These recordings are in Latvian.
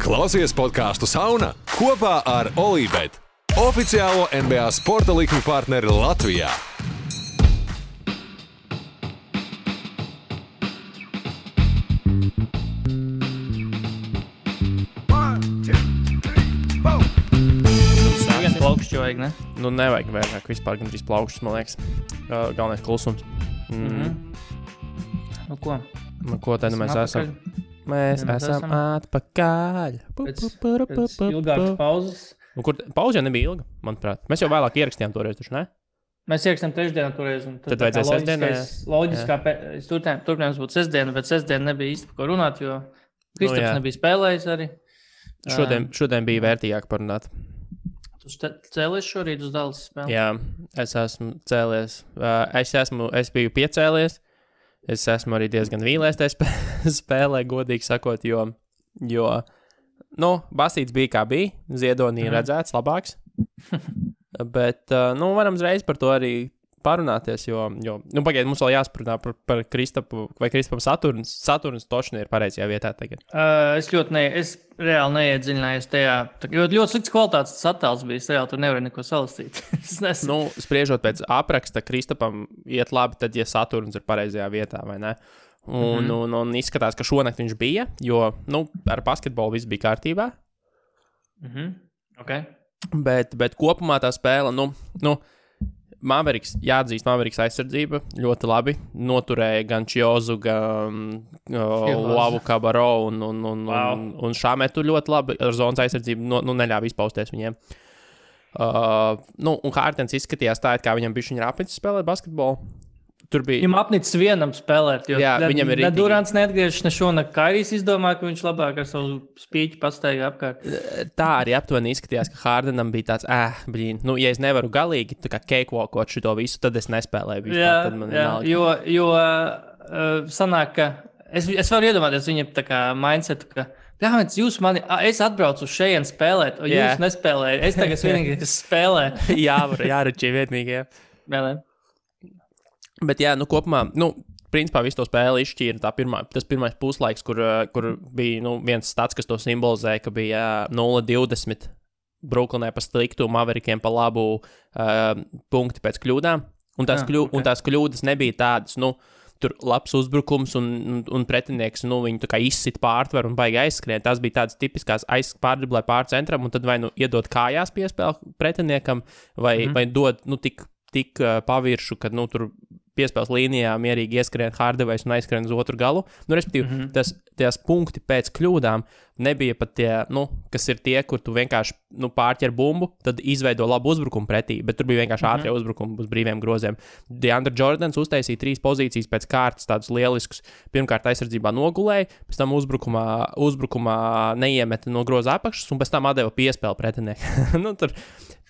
Klausies podcastu Sauna kopā ar Olībet, oficiālo NBA sporta likmi partneri Latvijā. Viens plaukšķi vajag, ne? Nu, nevajag vairāk vispār gandrīz plaukšķus, man liekas. Galvenais klusums. Nu, ko? Nu, ko tad mēs esam? Mēs esam atpakaļ. Pēc ilgākas pauzes. Nu, kur pauze jau nebija ilga, manuprāt. Mēs jau vēlāk ierakstījām toreiz, taču, ne? Mēs ierakstījām trešdienā toreiz. Tad vajadzēja sestdienā, Loģiskā turpinājums būtu sestdiena, bet sestdiena nebija īsti par ko runāt, jo Kristaps nebija spēlējis arī. Šodien bija vērtīgāk parunāt. Tu cēlies šorīt uz Dallas spēli? Jā, es esmu cēlies. Es biju piecēlies. Es esmu arī diezgan vīlies tajā spēlē, godīgi sakot, jo Basīts bija kā bija, Ziedonī redzēts labāks, bet, varam uzreiz par to arī parunāties, jo pagaid, mums vēl jāsprunā par Kristapu, vai Kristapam Saturns točni ir pareizajā vietā tagad. Es reāli neiedziļinājos tajā, jo ļoti slikts kvalitātes attēls bija, reāli tur nevar neko salastīt. Spriežot pēc apraksta, Kristapam iet labi tad, ja Saturns ir pareizajā vietā, vai ne? Un izskatās, ka šonakt viņš bija, jo, ar basketbolu viss bija kārtībā. Okay. Bet kopumā tā spēle, Mavericks aizsardzība ļoti labi noturēja gan Čiozu, gan Lavu Kabaro un Šāmetu ļoti labi ar zonas aizsardzību neļāva izpausties viņiem. Un Hārtens izskatījās tā, kā viņam bišķiņ rāpnicis spēlēt basketbolu. Viņam apnicis vienam spēlēt, jo viņam ir ne Durants neatgriežas, ne šonakt Kairijs izdomāja, ka viņš labāk ar savu spīķi pastaigā apkārt. Tā arī aptuveni izskatījās, ka Hārdenam bija tāds, ja es nevaru galīgi tā kā cakewalkot šito visu, tad es nespēlēju vispār. Jo sanāk, ka es varu iedomāties viņam tā kā mindsetu, ka es atbraucu uz šeien spēlēt, o jūs nespēlējat, es tagad vienīgi spēlē. Jāračī vietnīgi, jā. Bet kopumā, principā visu to spēli izšķīra tas pirmais puslaiks, kur bija viens stats, kas to simbolizēja, ka bija 0-20 Brooklynē pa sliktu, Maverikiem pa labu punkti pēc kļūdām. Un tās kļūdas nebija tādas, tur labs uzbrukums un pretinieks, viņi tā kā izsit pārtveru un baigi aizskrien. Tās bija tādas tipiskās pārdriblē pārcentram un tad vai iedod kājās piespēli pretiniekam vai dod tik paviršu, kad tur piespēles līnijā mierīgi ieskrien Hardaway's un aizskrien uz otru galu. Respektīvi, tās punkti pēc kļūdām nebija pat tie, kas ir tie, kur tu vienkārši pārķer bumbu, tad izveido labu uzbrukumu pretī, bet tur bija vienkārši ātrie uzbrukumi uz brīviem groziem. DeAndre Jordans uztaisīja 3 pozīcijas pēc kārtas, tādus lieliskus. Pirmkārt aizsardzībā nogulēja, pēc tam uzbrukumā neiemeta no groza apakšas un pēc tam atdeva piespēli pretinieku.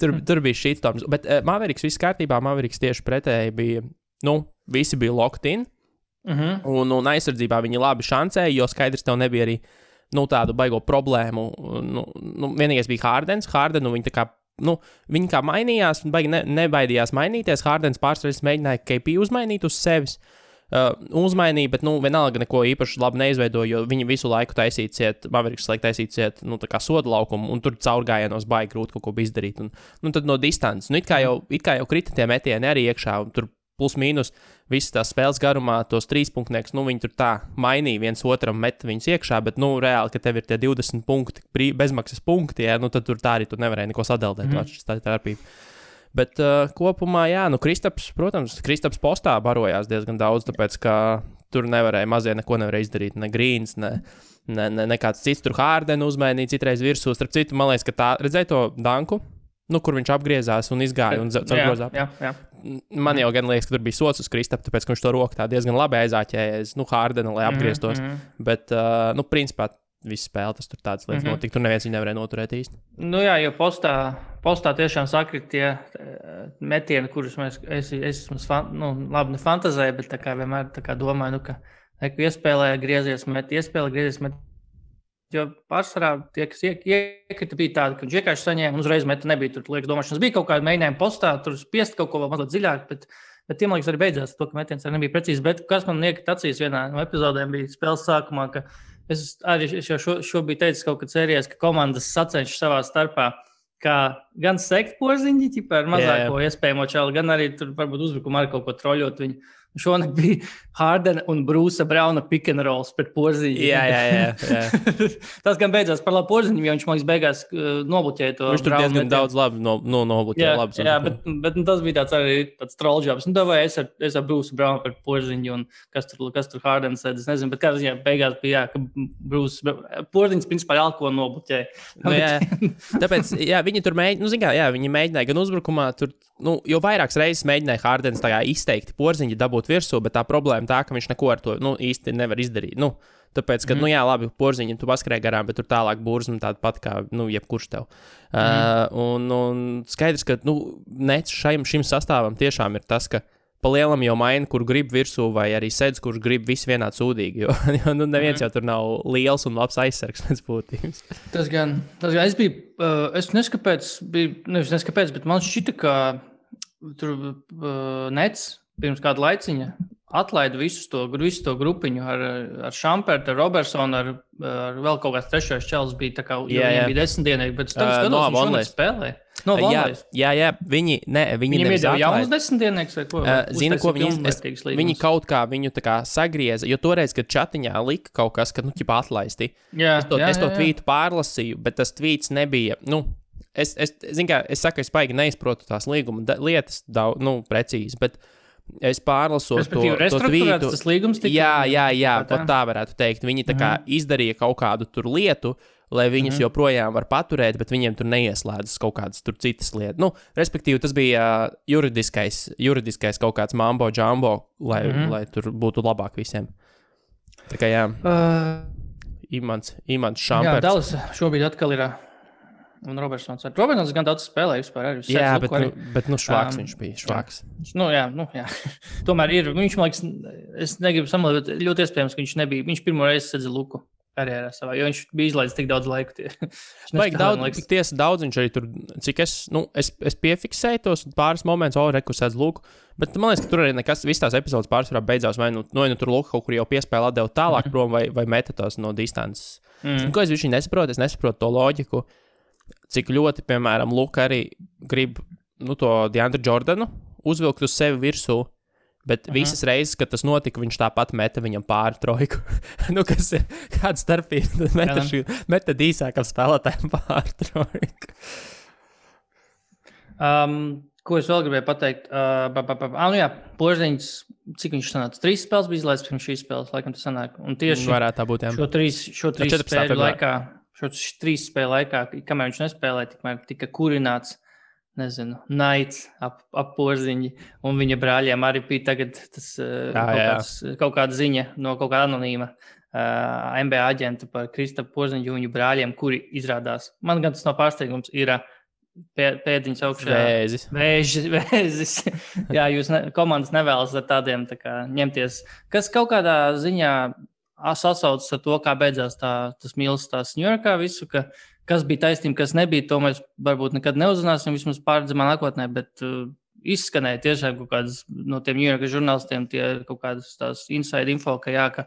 Tur bija shitstorms, bet Mavericks viss kārtībā, Mavericks tieši pretēji bija, visi bija locked in, un aizsardzībā viņi labi šancēja, jo skaidrs tev nebija arī, tādu baigo problēmu. Vienīgais bija Hardenu viņi tā kā, viņi kā mainījās, baigi nebaidījās mainīties, Hardens pārsteigts mēģināja KP uzmainīt uz sevis, uzmainīja, bet, vienalga neko īpaši labi neizveidoja, jo viņi visu laiku Mavericks taisīt ciet, tā kā soda laukumu, un tur caurgājienos baigi grūti kaut ko izdarīt, un tad no distances, it kā jau krita tie metieni arī iekšā, un tur plus mīnus visas tās spēles garumā, tos 3-punktnieks, viņi tur tā mainīja viens otram, met viņus iekšā, bet, reāli, ka tev ir tie 20 punkti, bezmaksas punkti, tad tur tā arī tu nevarēji neko sadeldēt, tā ir starpība. Bet kopumā, Kristaps postā barojās diezgan daudz, tāpēc, ka tur mazie neko nevarēja izdarīt, ne Greens, ne kāds cits, tur Hārdenu uzmainīja citreiz virsū, starp citu, man liekas, ka tā, redzēja to danku, kur viņš apgriezās un izgāja un grozā. Jā. Man jau gan liekas, ka tur bija sots uz Kristapu, tāpēc, ka viņš to roku tā diezgan labi aizāķējies, Hārdenu, lai apgrieztos, bet, principā, visu spēli tas tur tādas lietas notika, tur neviens viņu nevarēja noturēt īsti. Jo postā tiešām sakrit tie metieni, kurus es labi nefantazēju, bet tā kā vienmēr tā kā domāju, ka iespēlē griezies met, jo pārsvarā tie, kas iekrita, bija tādi, ka viņš vienkārši saņēma un uzreiz meta nebija tur liekas domāšanas. Bija kaut kāda mēģinājuma postā, tur spiest kaut ko vēl mazliet dziļāk, bet tiem liekas arī beidzās to, ka metiens arī nebija precīzi. Bet kas man iekrita acīs vienā no epizodēm bija spēles sākumā, ka es jau šobrīd teicu kaut kad sērijās, ka komandas sacenšas savā starpā, kā gan sekt Porziņģi, ar mazāko iespējamo čalu, gan arī tur varbūt uzbrukumā ar kaut ko troļot viņu. Šonakt bija Hardena un Brūsa Brauna pick and rolls pret Porziņu. Jā. Tas gan beidzās par labu Porziņam, jo viņš man beigās nobloķēja to. Viņš tur diezgan daudz labi nobloķēja. Jā, bet tas bija tāds trollžobs. Vai es ar Brūsu Braunu pret Porziņu un kas tur Hardena sēd, es nezinu, bet kā ziņā beigās bija, ka Porziņš principā alko nobloķēja. Tāpēc, viņi tur mēģināja, viņi mēģināja gan uzbrukumā, tur, jo vairākas reizes mēģināja Hardens tā izteikti Porziņu dabūt virsū, bet tā problēma tā, ka viņš neko ar to īsti nevar izdarīt. Tāpēc, ka, labi, Porziņam tu paskrēji garām, bet tur tālāk burzma tāda pat kā, jebkurš tev. Un skaidrs, ka, nec šim sastāvam tiešām ir tas, ka pa lielam jau maina, kur grib virsū, vai arī sedz, kurš grib visi vienādi sūdīgi, jo neviens jau tur nav liels un labs aizsargs pēc būtības. Tas gan, es biju, es neskaidrs, bet man šķita, ka tur nec pirms kāda laiciņa atlaida visu to grupiņu ar Šampertu, ar Robertsonu, ar vēl kaut kāds trešais čels bija, tā kā viņiem bija 10 dienīgi, bet tagad skatos, viņš šonakt spēlē. No Vonleys. Jā, viņi nevis atlaida. Jaunas 10 dienīgs vai ko? Zini, ko viņi kaut kā viņu tā kā sagrieza, jo toreiz, kad čatiņā lika kaut kas, ka, atlaisti. Es to tvītu pārlasīju, bet tas tvīts nebija, es saku, es paigi neizprotu tās līguma lietas precīzi, bet es pārlasot to tvītu. Tas līgums tika... Jā, pat tā varētu teikt. Viņi tā kā izdarīja kaut kādu tur lietu, lai viņus joprojām var paturēt, bet viņiem tur neieslēdzas kaut kādas tur citas lietas. Respektīvi, tas bija juridiskais kaut kāds mambo jumbo, lai tur būtu labāk visiem. Tā kā jā. Imants Šamperts. Jā, Dallas šobrīd atkal ir... Un Robertsons gan daudz spēlēja vispār arī. Jā, bet švāks viņš bija, švāks. Jā. Tomēr ir, viņš, man liekas, es negribu samalot, bet ļoti iespējams, ka viņš pirmo reizi sedza luku karjerā savā, jo viņš bija izlaidis tik daudz laiku. Daudz viņš arī tur, cik es piefiksēju tos pāris momentus, reku sedz luku, bet man liekas, ka tur arī nekas, viss tās epizodes pārsvarā beidzās, vai tur luku kaut kur jau piespēle atdeva tālāk prom, vai meta tos no distances. Ko es viņš nesaprotu to loģiku. Cik ļoti, piemēram, Luka arī grib to DeAndre Jordanu uzvilkt uz sevi virsū, bet visas reizes, kad tas notika, viņš tāpat meta viņam pāri trojku. Kas ir kāda starpība? Meta īsākam spēlētājiem pāri trojku. Ko es vēl gribēju pateikt? Porziņš, cik viņš sanāca? 3 spēles bija izlaists pirms šīs spēles, laikam tas sanāk. Un tieši varētu tā būt, jā. Šo 3 spēļu laikā, kamēr viņš nespēlēja, tikmēr tika kurināts, naids ap Porziņu, un viņa brāļiem arī bija tagad kaut kāda ziņa no kaut kāda anonīma NBA aģenta par Kristapu Porziņu viņu brāļiem, kuri izrādās, man gan tas nav pārsteigums, ir pēdiņas augšā. Vēzis. Jā, jūs komandas nevēlas ar tādiem tā kā ņemties, kas kaut kādā ziņā sasaucas ar to, kā beidzās tas mīlas tās Ņujorkā visu, kas bija taisnība, kas nebija, to mēs varbūt nekad neuzzināsim, vismaz pārredzamā nākotnē, bet izskanēja tiešām kaut kādas no tiem Ņujorkas žurnālistiem, tie kaut kādas tās inside info, ka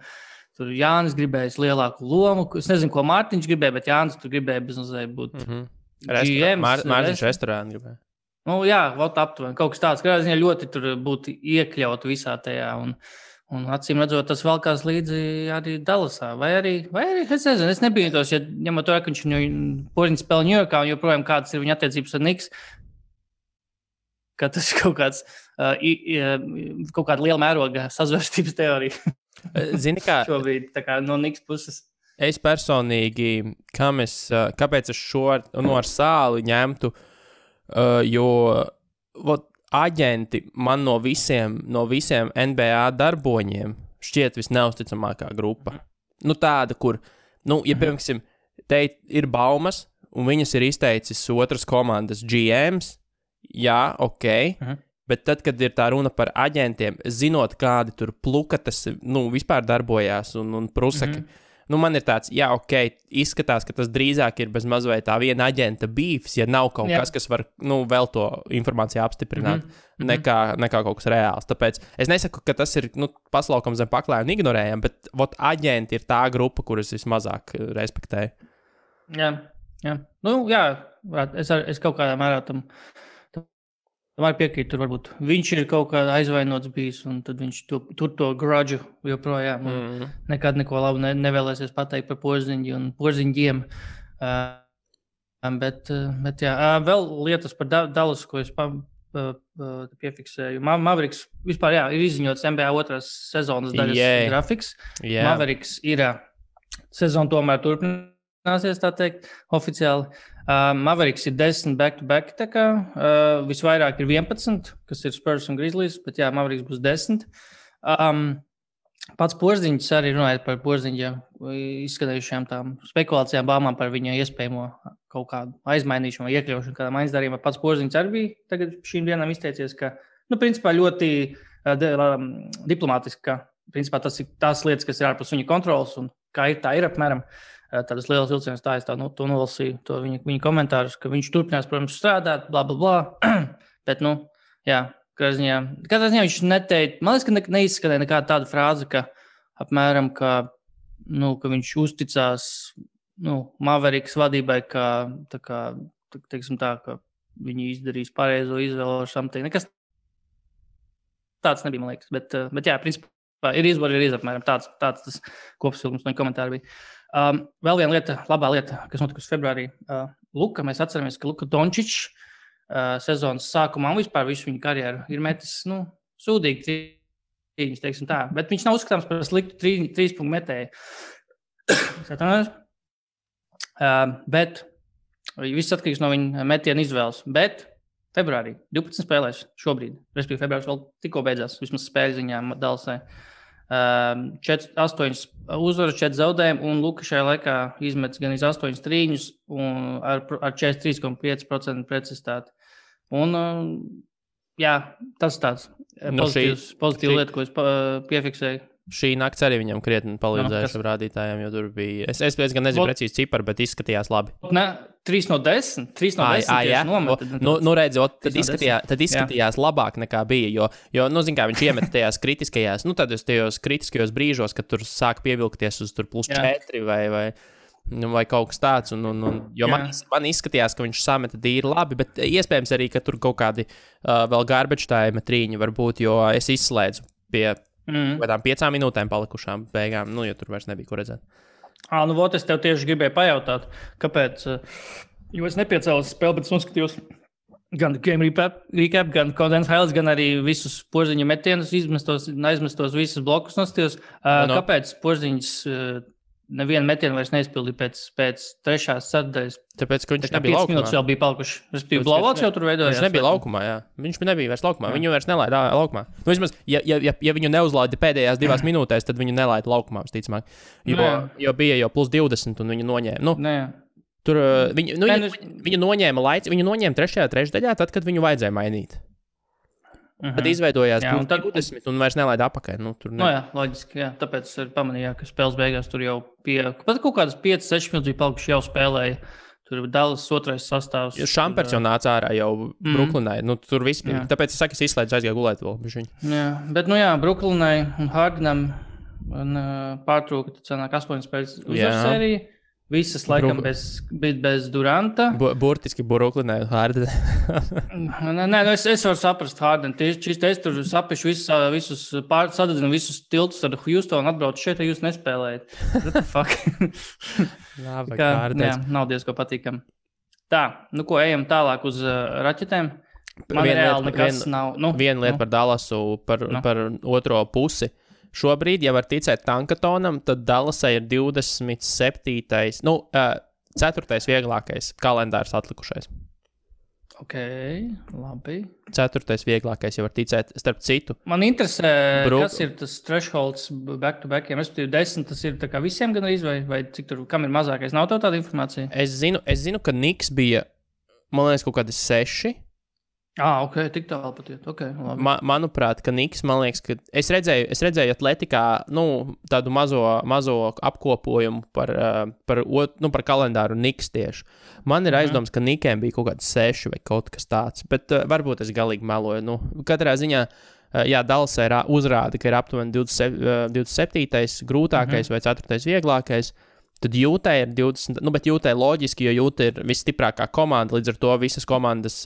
tur Jānis gribējis lielāku lomu, es nezinu, ko Mārtiņš gribēja, bet Jānis tur gribēja bezmazliet būt GM. Mārtiņš restorānu gribēja. Jā, aptuveni, kaut kas tāds, ka ziņā ļoti tur būtu iekļaut visā tajā un acīm redzot, tas valkās līdzi arī Dallasā. Vai arī, es nezinu, es nebiju tos, ja ņemot to, ka viņš Porziņš spēlē Ņujorkā un joprojām kādas ir viņa attiecības ar Knicks, ka tas ir kaut kāda liela mēroga sazvērstības teorija. Zini kā? Šobrīd tā kā no Knicks puses. Es personīgi, kāpēc es šo ar Sāli ņemtu, jo aģenti man no visiem NBA darboņiem šķiet visneusticamākā grupa. Tāda, kur, ja piemēram, te ir baumas, un viņas ir izteicis otras komandas GMs, jā, ok, bet tad, kad ir tā runa par aģentiem, zinot, kādi tur plukatas, vispār darbojās un prusaki, man ir tāds, izskatās, ka tas drīzāk ir bez mazliet tā viena aģenta beefs, ja nav kaut kas, kas var, vēl to informāciju apstiprināt, nekā kaut kas reāls. Tāpēc es nesaku, ka tas ir, paslaukums zem paklāja un ignorējam, bet, aģenti ir tā grupa, kuras vismazāk respektēju. Jā. Es kaut kādā mērā tam var piekrīt, tur varbūt viņš ir kaut kā aizvainots bijis, un tad viņš tur to grudžu joprojām. Nekad neko labu nevēlēsies pateikt par Porziņģi un Porziņģiem. Bet vēl lietas par Dallas, ko es piefiksēju. Mavericks vispār, ir izziņots NBA otrās sezonas daļas grafiks. Mavericks ir sezona tomēr turpināsies, tā teikt, oficiāli. Mavericks ir 10 back-to-back, tā kā visvairāk ir 11, kas ir Spurs un Grizzlies, bet Mavericks būs 10. Pats Porziņģis arī runājot par Porziņģa izskanējušajām tām spekulācijām, bāmām par viņa iespējamo kaut kādu aizmainīšanu vai iekļaušanu kādām aizdarījumā. Pats Porziņģis arī bija tagad šīm dienām izteicies, ka, principā ļoti diplomātiski, ka, principā tas ir tās lietas, kas ir ārpus viņa kontrolas un kā ir, tā ir apmēram. Tādas lielas vilcienas tā, es to nolasīju, to viņa komentārus, ka viņš turpinās, protams, strādāt, bla, bla, bla. Bet, katrā ziņā viņš neteica, man liekas, ka neizskanēja nekāda tāda frāze, ka apmēram, ka viņš uzticās, Mavericks vadībai, ka viņi izdarīs pareizo izvēlu ar something. Nekas tāds nebija, man liekas, bet principā ir apmēram tāds tas kopsavilkums no komentāru bija. Vēl viena lieta, labā lieta, kas notikusi februārī. Luka, mēs atceramies, ka Luka Dončičs sezonas sākumā un vispār visu viņa karjeru ir metis, sūdīgi trīņas, teiksim tā. Bet viņš nav uzskatāms par sliktu 3 punktu metēju. Bet viss atkarīgs no viņa metiena izvēles. Bet februārī 12 spēlēs šobrīd, respektīvi februāris vēl tikko beidzās, vismaz spēļu ziņā Dallasai. 8 uzvaras, 4 zaudējumi, un Luka šajā laikā izmetis gan 8 trīņus un ar 43,5% precizitāti. Un, tas tāds pozitīvs lieta, ko es piefiksēju. Šī nakts arī viņam krietni palīdzēja šiem rādītājiem, jo tur bija... Es gan nezinu precīzi ciparu, bet izskatījās labi. 3 no 10? 3 no 10 nomet. Tad izskatījās labāk nekā bija, jo zin kā, viņš iemet tajās kritiskajās, tajos kritiskajos brīžos, kad tur sāk pievilkties uz tur plus 4 vai kaut kas tāds, jo man izskatījās, ka viņš sameta dīri labi, bet iespējams arī, ka tur kaut kādi vēl garbage time trīņi var būt, jo es izslēdzu pie kādām 5 minūtēm palikušām beigām, jo tur vairs nebija ko redzēt. Es tev tieši gribēju pajautāt, kāpēc, jo es nepiecēlos spēli, bet es noskatījos gan game recap, gan condensed highlights, gan arī visus Porziņa metienus, aizmestos visus blokus noskatījos. Kāpēc Porziņš nevienu metienu vairs neizpildīja pēc 3. sadaļas? Tāpēc, ka viņš nebija laukumā. 5 minūtes vēl bija palikuši. Respektīvi, blowouts jau tur veidojās. Viņš nebija laukumā, jā. Viņš nebija vairs laukumā. Viņu vairs nelaida laukumā. Vismaz, ja viņu neuzlaida pēdējās 2 minūtēs, tad viņu nelaida laukumā, visticamāk. Jo bija jau plus 20 un viņu noņēma. Tur viņu noņēma laiks, viņu noņēma 3. trešdaļā, tad, kad viņu vajadzēja mainīt. Tad izveidojās 20 un vairs nelaida apakaļ. Loģiski, jā. Tāpēc es pamanīju, ka spēles beigās tur jau pat kaut kādas 5-6 minūtes bija palikuši jau spēlēja. Tur bija Dallas 2. sastāvs. Šampers jau nāca ārā jau Brooklynai. Tur viss bija. Tāpēc es saku, es izslēdzu aizgāju gulēt vēl. Jā, bet Brooklynai un Hardenam pārtrūka, tad sanāk 8 spēles uzvaras sērija. Visas laikam bez Duranta. Burtiski Brooklynai un Hardenam. Es varu saprast Hardenam. Tieši es tur sapišu visus sadedzinu visus tiltus ar Houstonu, atbraucu šeit, ja jūs nespēlējat. What the fuck? Nav diezko patīkam. Tā, ko ejam tālāk uz raķetēm? Man reāli nekas nav. Viena lieta par Dallasu, par otro pusi. Šobrīd, ja var ticēt Tankatonam, tad Dallasai ir 27. 4. vieglākais kalendārs atlikušais. Ok, labi. 4. vieglākais, ja var ticēt, starp citu. Man interesē, kas ir tas thresholds back-to-backiem. Respektīvi 10, tas ir tā kā visiem gan arī, vai cik tur, kam ir mazākais? Nav tev tāda informācija? Es zinu, ka Knicks bija, man liekas, kaut kādi 6. Ok, tik tālu patiet. Okay, manuprāt, ka Niks, man liekas, ka es redzēju Atletikā, tādu mazo apkopojumu par kalendāru Niks tieši. Man ir aizdoms, ka Nikiem bija kaut kāds 6 vai kaut kas tāds, bet varbūt es galīgi meloju. Katrā ziņā, Dallasē uzrāda, ka ir aptuveni 27. grūtākais vai 4. vieglākais. Tad Jūtai ir 20, bet Jūtai loģiski, jo Jūta ir visstiprākā komanda, līdz ar to visas komandas,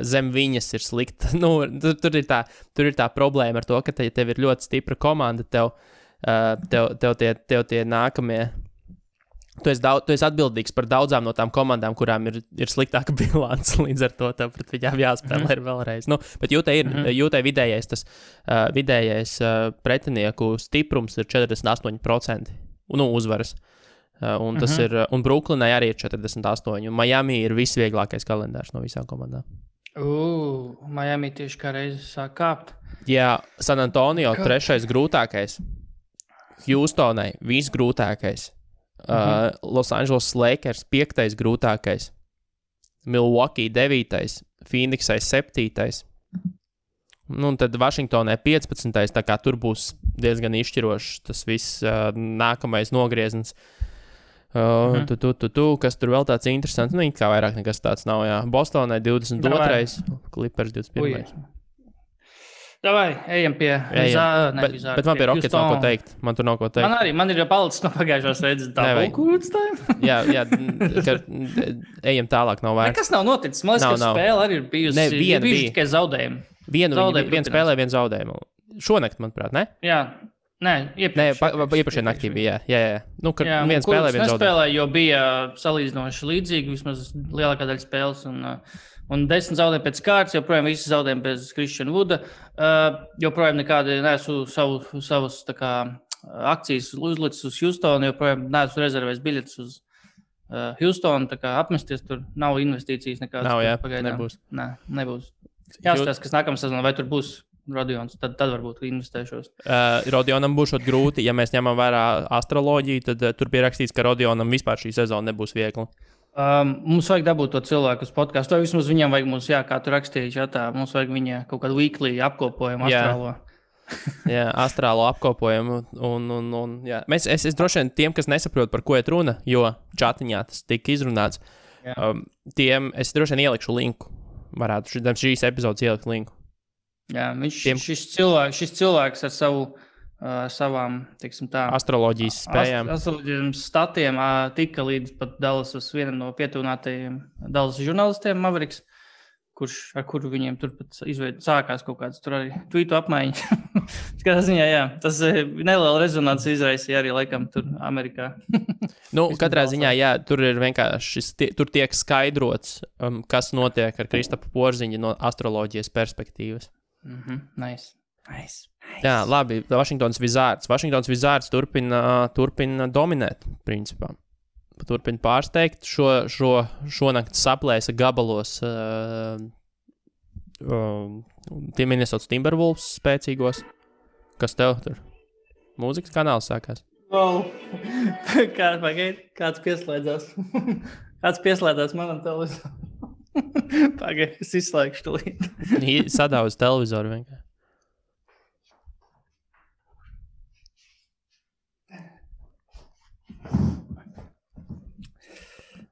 zem viņas ir slikta. Tur ir tā problēma ar to, ka tev ir ļoti stipra komanda, tev tie nākamie. Tu esi atbildīgs par daudzām no tām komandām, kurām ir sliktāka bilance, līdz ar to tev pret viņām jāspēlē vēlreiz. Bet Jūtai vidējais pretinieku stiprums ir 48%, uzvaras. Un tas ir, un Brooklynai arī ir 48, un Miami ir visvieglākais kalendārs no visām komandām. Miami tieši kā reizi sāk kāpt. Jā, San Antonio 3. grūtākais, Houstonai visgrūtākais, Los Angeles Lakers 5. grūtākais, Milwaukee 9. Phoenixai 7. Un tad Vašingtonai 15. Tā kā tur būs diezgan izšķirošs tas viss nākamais nogrieziens. Kas tur vēl tāds interesants? Kā vairāk nekas tāds nav, jā. Bostonai 22. Clippers 21. Davai, ejam pie Vizārda. Bet man pie Rockets nav ko teikt. Man tur nav ko teikt. Man ir jau palicis no pagājušās reizes jā, ejam tālāk, nav vērts. Nekas nav noticis. Man liekas, ka spēle arī ir bijusi tikai zaudējumi. Viena spēlē, viena zaudējumu. Šonakt, manuprāt, ne? Jā. Iepriekšējā naktī bija, jā. Viena spēlē, viena zaudējuma. Jo bija salīdzinoši līdzīgi, vismaz lielākā daļa spēles, un 10 zaudējumi pēc kārtas, joprojām visi zaudējumi bez Christian Wooda, joprojām nekādi neesmu savus akcijas uzlicis uz Houstonu, joprojām neesmu rezervējis biļetes uz Houstonu, tā kā apmesties tur nav investīcijas nekādas. Nav, jā, nebūs. Nebūs. Jāskatās, kas nākamā sezonā, vai tur būs Rodions, tad varbūt investēšos. Rodionam būs grūti, ja mēs ņemam vērā astroloģiju, tad tur bija rakstīts, ka Rodionam vispār šī sezona nebūs viegla. Mums vajag dabūt to cilvēku uz podcastu, vai vismaz viņam vajag mums, kā tu rakstīji, mums vajag viņa kaut kādu weekly apkopojumu astrālo. Jā, astrālo apkopojumu. Jā. Es droši vien tiem, kas nesaprot, par ko iet runa, jo čatiņā tas tika izrunāts, tiem es droši vien ielikšu linku. Varētu šīs epizodes ielikt linku. Jā, šis cilvēks ar savām, teiksim tā, astroloģijas spējām. Astroloģijas statiem tika līdz pat Dallasas vienam no pietuvinātajiem Dallas žurnālistiem Mavericks, ar kuru viņiem turpat sākās kaut kāds tur arī tweetu apmaiņa. Skatā ziņā, jā, tas neliela rezonanci izraisīja arī laikam tur Amerikā. Katrā ziņā, jā, tur ir vienkārši, tur tiek skaidrots, kas notiek ar Kristapu Porziņu no astroloģijas perspektīvas. Nice. Jā, labi, Washingtons Wizards turpina dominēt, principā. Turpina pārsteigt. Šonakt saplēsa gabalos tie Minnesota Timberwolves spēcīgos. Kas tev tur? Mūzikas kanāls sākās. Kāds pieslēdzās? Kāds pieslēdzās manam televizoram? Pagaid, es izslēgšu tulīt. Sadauz televizoru vienkārši.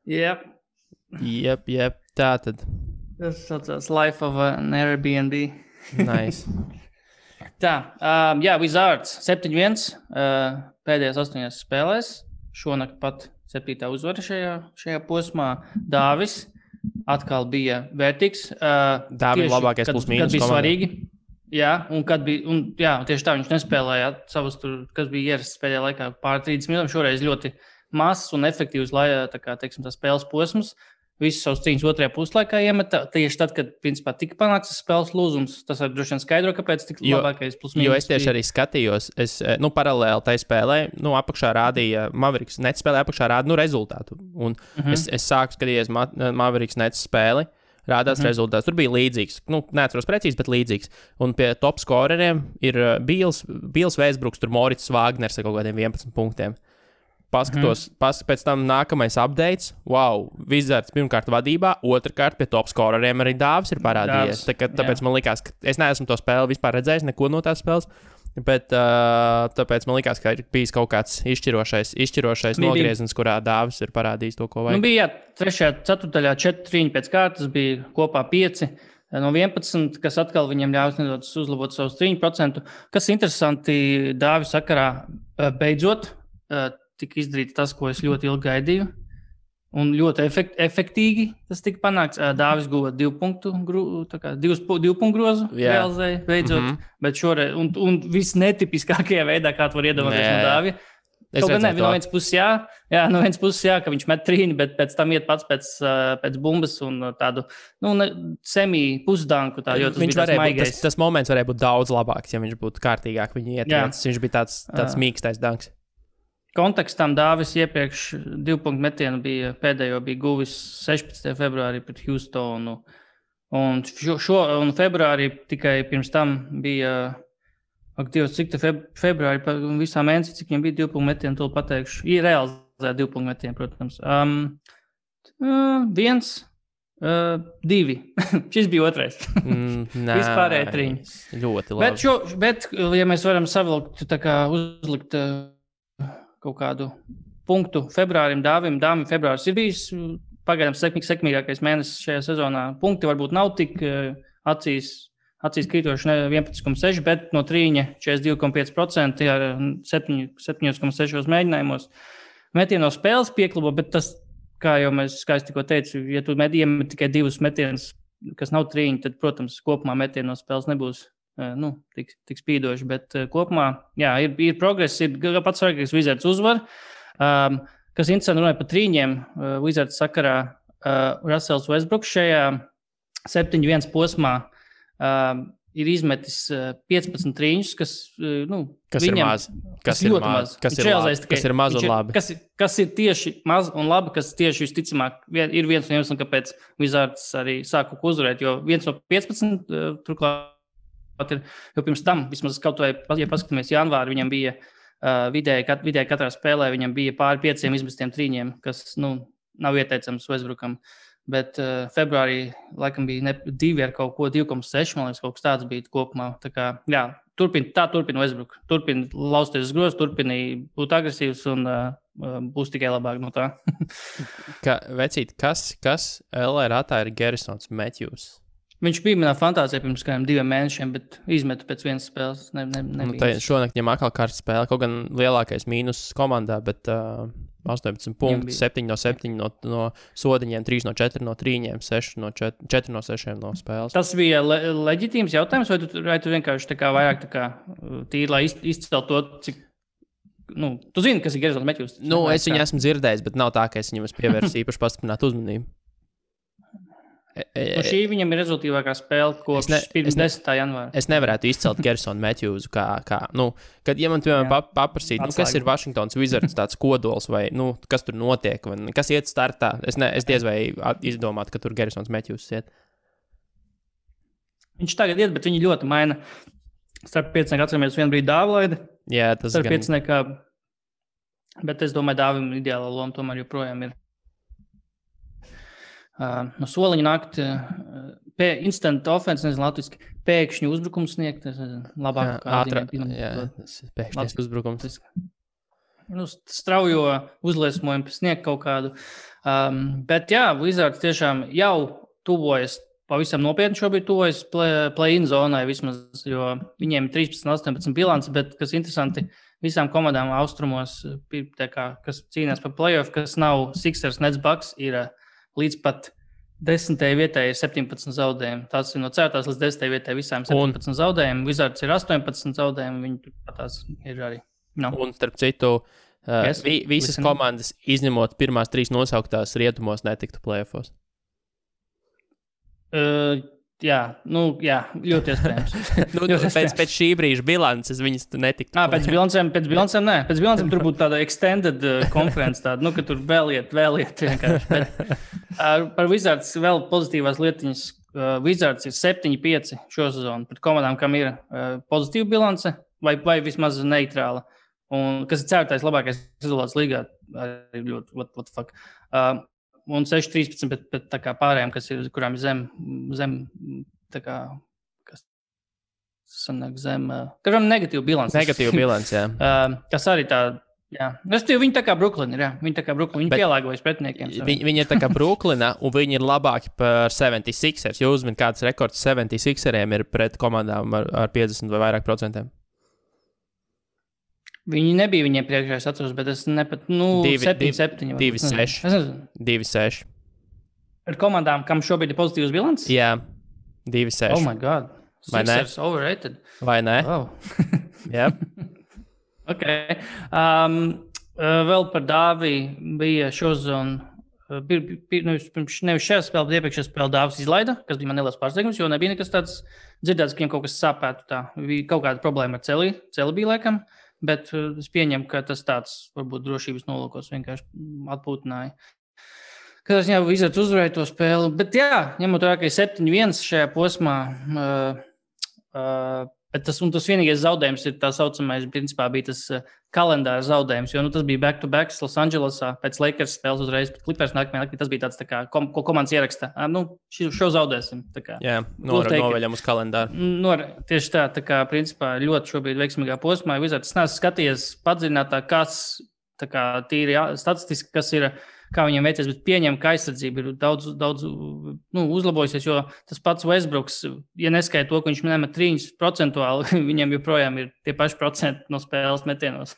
Jep, tā tad. Tas saucās Life of an Airbnb. Nice. Tā, Wizards 7-1 pēdējās 8 spēlēs. Šonakt pat 7. uzvara šajā posmā. Dāvis atkal bija vērtīgs. Dāvis labākais plus mīnus komandai. Kad bija svarīgi. Jā, tieši tā viņš nespēlēja savus tur, kas bija ierasts pēdējā laikā pār 30 minūtēm. Šoreiz ļoti mazs un efektīvs, tā spēles posms. Visus savus cīņus otrajā puslaikā iemeta. Tieši tad, kad principā tika panākts spēles lūzums, tas var droši vien skaidro, kāpēc tik labākais plus mīnus. Jo es tieši arī skatījos, paralēli tai spēlē, apakšā rādīja Mavericks net spēlē, apakšā rāda rezultātu. Un es sāku skatīties Mavericks net spēli, rādās rezultāts. Tur bija līdzīgs, neatceros precīzi, bet līdzīgs. Un pie top skoreriem ir Bīls Vēsbruks, tur Morits Vāgners ar kaut kādiem 11 punktiem. paskatos, pēc tam nākamais updates. Wow, Wizards pirmkārt vadībā, otrkārt pie top scoreriem arī Dāvis ir parādījies. Tāpēc man likās, ka es neesmu to spēli vispār redzējis, neko no tās spēles. Bet tāpēc man likās, ka ir bijis kaut kāds izšķirošais nogrieziens, kurā Dāvis ir parādījis to, ko vajag. Bija 3. ceturtajā 4 trīņi pēc kārtas, bija kopā 5 no 11, kas atkal viņam ļaus nedaudz uzlabot savus 3%. Kas interesanti Dāvis sakarā beidzot tika izdarīts tas, ko es ļoti ilgi gaidīju. Un ļoti efektīgi tas tika panākts. Dāvis guva 2 punktu grozu, realizēja beidzot. Bet šoreiz, un viss netipiskākajā veidā, kā tu var iedomāties no Dāvija. Kaut gan no vienas puses jā, ka viņš met trīni, bet pēc tam iet pats pēc bumbas un tādu semi-pusdanku. Viņš varēja būt, tas moments varēja būt daudz labāks, ja viņš būtu kārtīgāk viņu ietiecis. Viņš bija tāds mīkstais danks. Kontekstam Dāvis iepriekš 2 punktu metienu pēdējo bija guvis 16. februārī pret Houstonu. Un februārī tikai pirms tam bija, cik februārī visā mēnesī, cik viņam bija 2 punktu metienu, to pateikšu. Ir realizēja 2 punktu metienu, protams. 1, 2. Šis bija otrais. Vispārēji 3. Ļoti labi. Bet, ja mēs varam savilkt, uzlikt kaut kādu punktu februārim, Dāvim februāris ir bijis pagaidām sekmīgākais mēnesis šajā sezonā. Punkti varbūt nav tik acīs krītoši 11,6, bet no trīņa 42,5% ar 7,6 mēģinājumos. Metienu no spēles pieklabo, bet tas, kā es tikko teicu, ja tu iemet tikai 2 metienus, kas nav trīņi, tad, protams, kopumā metienu no spēles nebūs tik spīdoši, bet kopumā, jā, ir progress, ir pats svarīgākais Wizards uzvar. Kas interesanti runāja par trīņiem, Wizards sakarā Russells Westbrooks šajā 7-1 posmā ir izmetis 15 trīņus, kas viņam, kas ir maz un labi. Kas ir tieši maz un labi, kas tieši visticamāk ir viens no iemesliem, kāpēc Wizards arī sāka uzvarēt, jo viens no 15 turklāt jo pirms tam, vismaz kaut vai, ja paskatāmies janvāri, viņam bija vidēji katrā spēlē, viņam bija pāri 5 izmestiem trīņiem, kas, nav ieteicams Westbrookam, bet februārī laikam bija 2 ar kaut ko 2,6, man liekas, kaut kas tāds bija kopumā, tā kā, jā, turpina Westbrook, turpina lausties uz grozu, turpina būt agresīvs un būs tikai labāk no tā. Vecīt, kas LA ratā ir Garrisons Matthews? Viņš bija manā fantāzijā pirms kādiem 2 mēnešiem, bet izmetu pēc vienas spēles. Šonakt viņam atkal kārtas spēle, kaut gan lielākais mīnus komandā, bet 18 punkti, 7 no 7 no sodiņiem, 3 no 4 no trīņiem, 4 no 6 no spēles. Tas bija leģitīms jautājums, vai tu vienkārši vairāk tīri, lai izcelt to, cik... tu zini, kas ir Garrisons Matthews? Es viņu esmu dzirdējis, bet nav tā, ka es viņam pievērsu īpaši pastiprinātu uzmanību. Šī viņam ir rezultīvākā spēle kopš pirms 10. janvāra. Es nevarētu izcelt Garrisonu Matthewsu kā kad, ja man, piemēram, paprasīt, kas ir Washingtons Wizards tāds kodols vai, kas tur notiek, vai kas iet startā, es diez vai izdomātu, ka tur Garrisons Matthews iet. Viņš tagad iet, bet viņi ļoti maina. Starp 5 atceramies vienu brīdi Dāvlaida. Jā, tas starp 5, bet es domāju, Dāvim ideāla loma tomēr joprojām ir. No soliņa nākt instant offense, nezinu latviski, pēkšņi uzbrukums sniegt, labāk pēkšņi uzbrukums. Straujo uzliesmojumu sniegt kaut kādu. Bet jā, Wizards tiešām jau tuvojas, pavisam nopietni šobrīd tuvojas play-in zonai vismaz, jo viņiem 13-18 bilants, bet kas interesanti, visām komandām austrumos, kas cīnās par play-off, kas nav Sixers, Nets, Bucks, ir līdz pat 10. vietai ir 17 zaudējumi. Tās ir no 4. līdz 10. vietai visām 17 zaudējumi. Wizards ir 18 zaudējumi, viņi tās ir arī. Un starp citu, visas komandas, izņemot pirmās 3 nosauktās rietumos, netiktu play-offos. Jā, ļoti iespējams. Pēc šī brīža bilances viņas netiktu. Pēc bilancēm nē. Pēc bilancēm tur būtu tāda extended conference, tāda, ka tur vēl iet vienkārši. Bet, par Wizards vēl pozitīvās lietiņas. Wizards ir 7-5 šo sezonu pret komandām, kam ir pozitīva bilance vai vismaz neitrāla. un kas ir ceturtais labākais rezultāts līgā, arī ļoti, what the fuck. Un 6-13, bet tā kā pārējām, kurām ir zem tā kā, kas sanāk zem, kuram negatīva bilance. Negatīva bilance, jā. Kas arī tā, jā. Viņi tā kā Brooklyn ir, jā. Viņi tā kā Brooklyn, viņi pielāgojas pretiniekiem. Viņi ir tā kā Brooklyna, un viņi ir labāki par 76ers. Jūs uzmin, kāds rekords 76eriem ir pret komandām ar 50 vai vairāk procentiem? Viņi nebija viņiem priekšā, es atceros, bet es nepat, 7-7. 2-6. Ar komandām, kam šobrīd ir pozitīvs bilants? Jā, 2-6. Oh my God. Vai ne? Sixers overrated. Vai ne? Oh. Jā. Ok. Vēl par Dāvi bija šozon, nevis šajā spēlē, bet iepriekšējā spēlē Dāvis izlaida, kas bija man neliels pārsteigums, jo nebija nekas tāds dzirdēts, ka viņam kaut kas sāpētu tā. Bija kaut kāda problēma ar celi bija laikam. Bet es pieņemu, ka tas tāds, varbūt drošības nolūkos vienkārši atpūtināja. Kad es jau Wizards uzvarēju to spēli. Bet jā, ņemot vērā, ka ir 7-1 šajā posmā, bet tas vienīgais zaudējums ir tā saucamais, principā bija tas kalendāra zaudējums, jo tas bija back-to-back Los Andželosā pēc Lakers spēles uzreiz, bet Clippers nākamajā naktī tas bija tāds tā kā, ko komandas ieraksta. Šo zaudēsim. Tā kā. Jā, noveļam uz kalendāru. Tieši tā kā, principā, ļoti šobrīd veiksmīgā posmā. Wizards, es neesmu skatījies padziļinātāk, kas tā kā tīri statistiski, kas ir, kā viņiem veicies, bet pieņem, ka aizsardzība ir daudz uzlabojusies, jo tas pats Westbrooks, ja neskaita to, ka viņš nemet 3%, viņam joprojām ir tie paši procenti no spēles metienos.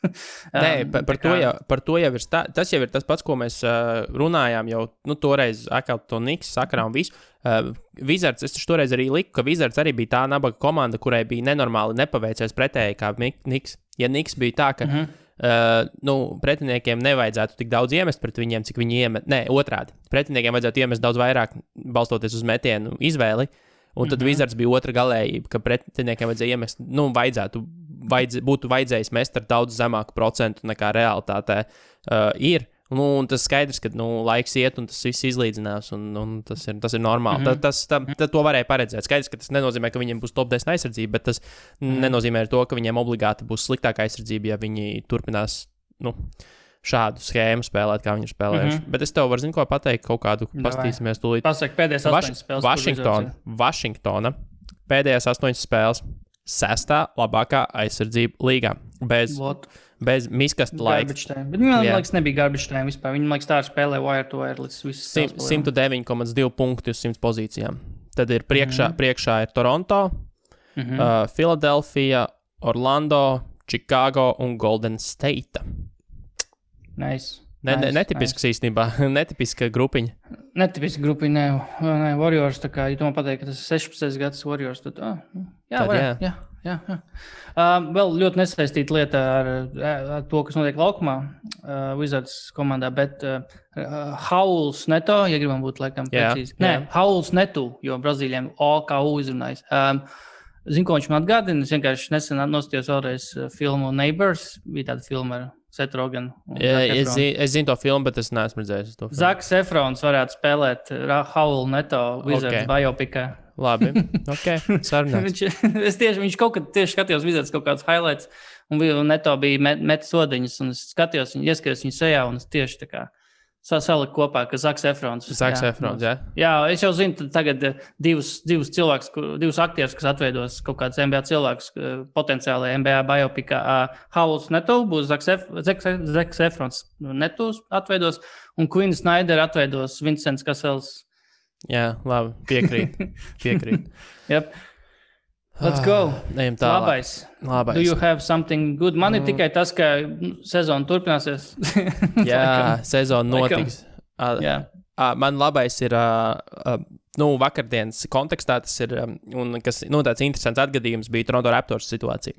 Nē, par to jau ir tas jau ir tas pats, ko mēs runājām jau, toreiz atkal to Knicks sakarā un visu. Wizards, es toreiz arī liku, ka Wizards arī bija tā nabaga komanda, kurai bija nenormāli nepaveicies pretēji kā Knicks. Ja Knicks bija tā, ka pretiniekiem nevajadzētu tik daudz iemest pret viņiem, cik viņi iemet. Nē, otrādi. Pretiniekiem vajadzētu iemest daudz vairāk, balstoties uz metienu izvēli. Un tad Wizards bija otra galējība, ka pretiniekiem vajadzēja iemest, būtu vajadzējis mest ar daudz zemāku procentu nekā realitātē ir. Un tas skaidrs, ka laiks iet un tas viss izlīdzinās, un tas ir normāli. To varēja paredzēt. Skaidrs, ka tas nenozīmē, ka viņiem būs top 10 aizsardzība, bet tas nenozīmē to, ka viņiem obligāti būs sliktāka aizsardzība, ja viņi turpinās šādu schēmu spēlēt, kā viņi ir spēlējuši. Bet es tev varu ko pateikt, kaut kādu pastīsimies tūlīt. Pasaka, pēdējās 8 spēles. Vašingtona pēdējās 8 spēles 6. labākā aizsardzība līgā. Bez miskasta laika. Bet man liekas, nebija garbage time vispār. Viņi, liekas, tā spēlē wire to wire līdz visas 109,2 punkti uz 100 pozīcijām. Tad ir priekšā ir Toronto, Philadelphia, Orlando, Chicago un Golden State. Nice. Netipisks īstenībā, netipiska grupiņa. Netipiska grupiņa, ne, Warriors, tā kā, ja tu man pateikt, ka tas ir 16 gads Warriors, tad, jā. Vēl ļoti nesaistīta lieta ar to, kas notiek laukumā Wizards komandā, bet Hauls Neto, ja gribam būt laikam precīzi. Nē, Hauls Neto, jo Brazīļiem OKU izrunājis. Zinu, ko viņš man atgādina, es vienkārši nesen nostījos vēlreiz filmu Neighbors, bija tāda filma ar Seth Rogen. Es zinu to filmu, bet es neesmu redzējis to filmu. Zaks Efrons varētu spēlēt Hauls Neto Wizards biopikā. Labi, sarunāts. Viņš kaut kad tieši skatījos Wizards kaut kāds highlights, un Neto bija met sodiņas, un es ieskatījos viņu sejā, un es tieši tā kā saliku kopā, ka Zaks Efrons. Jā. Jā, es jau zinu, tagad divus cilvēkus, divus aktierus, kas atveidos kaut kāds NBA cilvēks potenciāli NBA biopikā. Hauls Neto būs Zaks Efrons Netos atveidos, un Quinn Snyder atveidos Vincents Kasels. Jā, labi, piekrīt. Yep. Let's go. Ejam tālāk. Labais. Do you have something good? Man ir tikai tas, ka sezona turpināsies. Jā, sezona notiks. Man labais ir, vakardienas kontekstā tas ir, un kas, tāds interesants atgadījums bija Toronto Raptors situācija.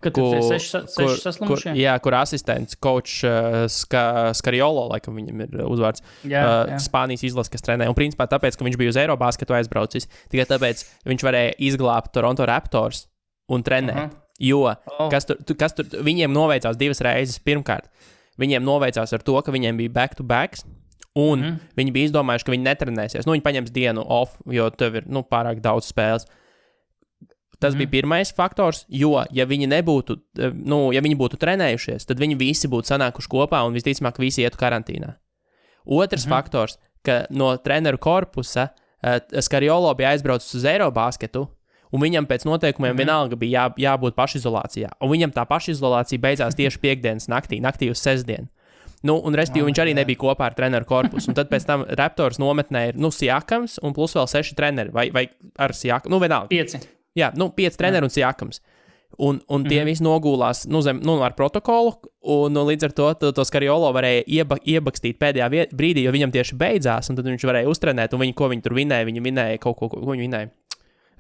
Kad tur ir 6 saslimušie? Kur asistents, coach Skariolo, laikam viņam ir uzvārds, Spānijas izlases, kas trenē. Un principā tāpēc, ka viņš bija uz Eirobasketu aizbraucis, tikai tāpēc viņš varēja izglābt Toronto Raptors un trenēt. Jo, kas tur, viņiem noveicās 2 reizes. Pirmkārt, viņiem noveicās ar to, ka viņiem bija back-to-backs, un viņi bija izdomājuši, ka viņi netrenēsies. Viņi paņems dienu off, jo tev ir pārāk daudz spēles. Tas bija pirmais faktors, jo, ja viņi nebūtu, ja viņi būtu trenējušies, tad viņi visi būtu sanākuši kopā un visticamāk visi ietu karantīnā. Otrs faktors, ka no treneru korpusa Skariolo bija aizbraucis uz Eirobasketu, un viņam pēc noteikumiem vienalga bija jābūt pašizolācijā. Un viņam tā pašizolācija beidzās tieši piekdienas naktī uz sestdienu. Un respektīvi viņš arī nebija kopā ar treneru korpusu. Un tad pēc tam Raptors nometnē ir, Siakams un plus vēl 6 treneri, vai ar Siakam, vienalga. 5. Jā, 5 treneri un Siakams. Un tie visi nogulās ar protokolu, un līdz ar to Skariolo varēja iebakstīt pēdējā brīdī, jo viņam tieši beidzās, un tad viņš varēja uztrenēt, un ko viņi tur vinēja, viņi vinēja kaut ko viņi vinēja.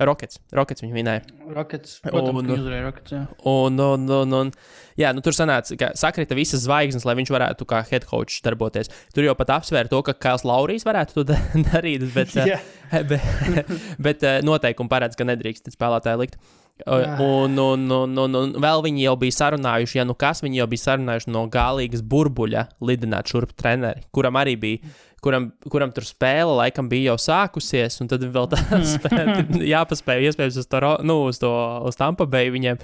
Rockets viņi vinēja. Rockets, protams, viņi uzvarēja Rockets, jā. Tur sanāca, ka sakrita visas zvaigznes, lai viņš varētu kā head coach darboties. Tur jau pat apsvēra to, ka Kails Laurijs varētu to darīt, bet noteikumi paredz, ka nedrīkst spēlētāji likt. Un vēl viņi jau bija sarunājuši, viņi jau bija sarunājuši no galīgas burbuļa lidināt šurp treneri, kuram arī bija, kuram tur spēle laikam bija jau sākusies, un tad vēl tas jāpaspēja iespējams uz Tampa Bay viņiem.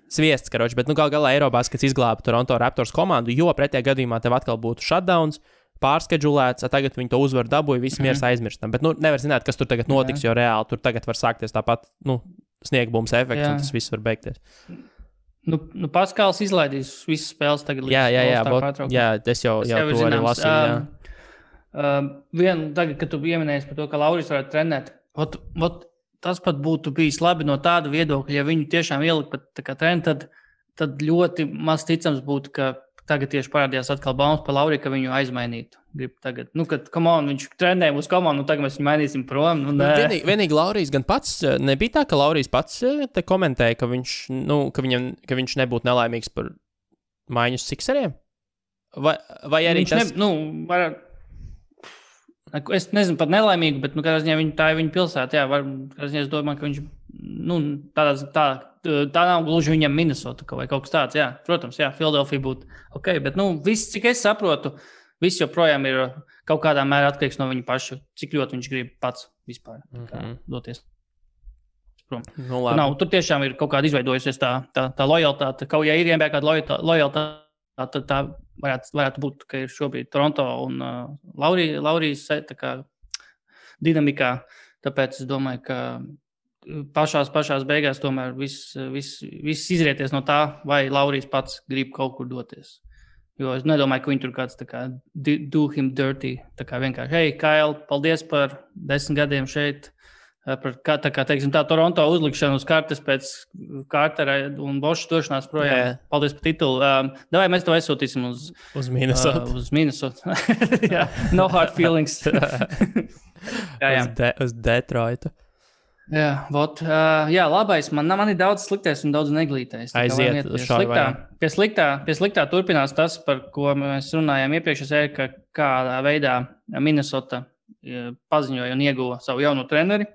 Sviests, karoči, bet galā Eirobaskets izglāba Toronto Raptors komandu, jo pretējā gadījumā tev atkal būtu shutdowns, pārskedžulēts, tagad viņi to uzvaru dabūja, visi miers aizmirstam. Bet nevar zināt, kas tur tagad notiks, jo reāli tur tagad var sākties tāpat, sniegbums efekts, un tas viss var beigties. Paskāls izlaidīs visas spēles tagad. Jā, es jau to arī lasīju, Tagad, kad tu pieminējies par to, ka Laurijs varētu trenēt, tas pat būtu bijis labi no tāda viedokļa, ja viņu tiešām ielikt pat treni, tad ļoti maz ticams būtu, ka tagad tieši parādījās atkal baumas par Lauriju, ka viņu aizmainītu. Tagad, kad viņš trenē uz komandu, tagad mēs viņu mainīsim prom. Vienīgi Laurijs gan pats, nebija tā, ka Laurijs pats te komentēja, ka viņš nebūtu nelaimīgs par maiņu Sixeriem? Vai arī tas... Es nezinu pat nelaimīgu, bet kādā ziņā tā ir viņa pilsēta. Kādā ziņā es domāju, ka viņš tā nav gluži viņam Minnesota vai kaut kas tāds. Jā, protams, Philadelphia būtu ok, bet viss, cik es saprotu, viss joprojām ir kaut kādā mērā atkarīgs no viņa paša, cik ļoti viņš grib pats vispār doties prom. Tur tiešām ir kaut kāda izveidojusies tā lojalitāte. Kaut ja ir NBA kāda lojalitāte, tad tā varētu būt, ka ir šobrīd Toronto un Laurijas dinamikā. Tāpēc es domāju, ka pašās beigās tomēr viss izrieties no tā, vai Laurijs pats grib kaut kur doties. Jo es nedomāju, ka viņi tur kāds do him dirty. Vienkārši, hei, Kail, paldies par 10 gadiem šeit. Tā Toronto uzlikšana uz kartes pēc Cartera un Boša došanās projām. Paldies par titulu. Davai mēs to aizsūtīsim uz Minnesota. Uz Minnesota. No hard feelings. Uz Detroitu. Labais. Man ir daudz sliktais un daudz neglītais. Aiziet uz šādu vajag. Pie sliktā turpinās tas, par ko mēs runājām iepriekš, ka kādā veidā Minnesota paziņoja un ieguva savu jauno treneri.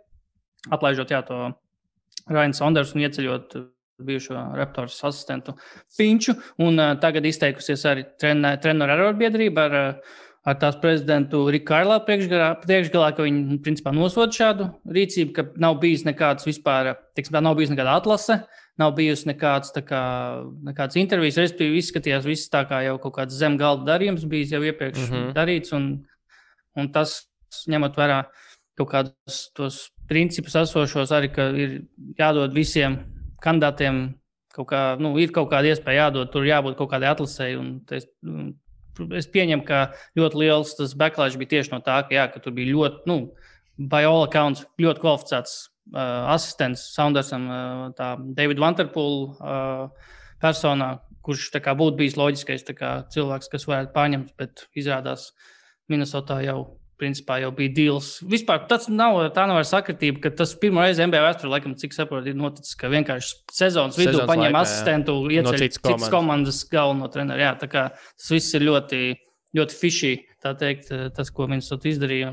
Atlaižot to Ryan Saunders un ieceļot bijušo Raptors asistentu Finču. Un tagad izteikusies arī treneru arotbiedrība ar tās prezidentu Riku Kailā priekšgalā, ka viņi principā nosoda šādu rīcību, ka nav bijis nekāds vispār, nav bijis nekāda atlase, nav bijis nekāds intervijas, respektīvi izskatījās viss tā kā jau kaut kāds zem galda darījums bijis jau iepriekš darīts, un tas ņemot vērā kaut kādus tos principus esošos arī, ka ir jādod visiem kandidātiem ir kaut kāda iespēja jādod, tur jābūt kaut kādai atlasēji, un es pieņemu, ka ļoti liels tas backlash bija tieši no tā, ka tur bija ļoti, by all accounts, ļoti kvalificēts asistents Saundersam, tā David Vanterpool personā, kurš būtu bijis loģiskais cilvēks, kas varētu pārņemt, bet izrādās Minnesotā principā jau bija deals. Vispār tā nav sakritība, ka tas pirmo reizi NBA vēsturē, laikam, cik saprotu, ir noticis, ka vienkārši sezonas vidū paņem asistentu, ieceļ citas komandas galveno treneru. Jā, tas viss ir ļoti, ļoti fishy, tā teikt, tas, ko Minnesota izdarīja.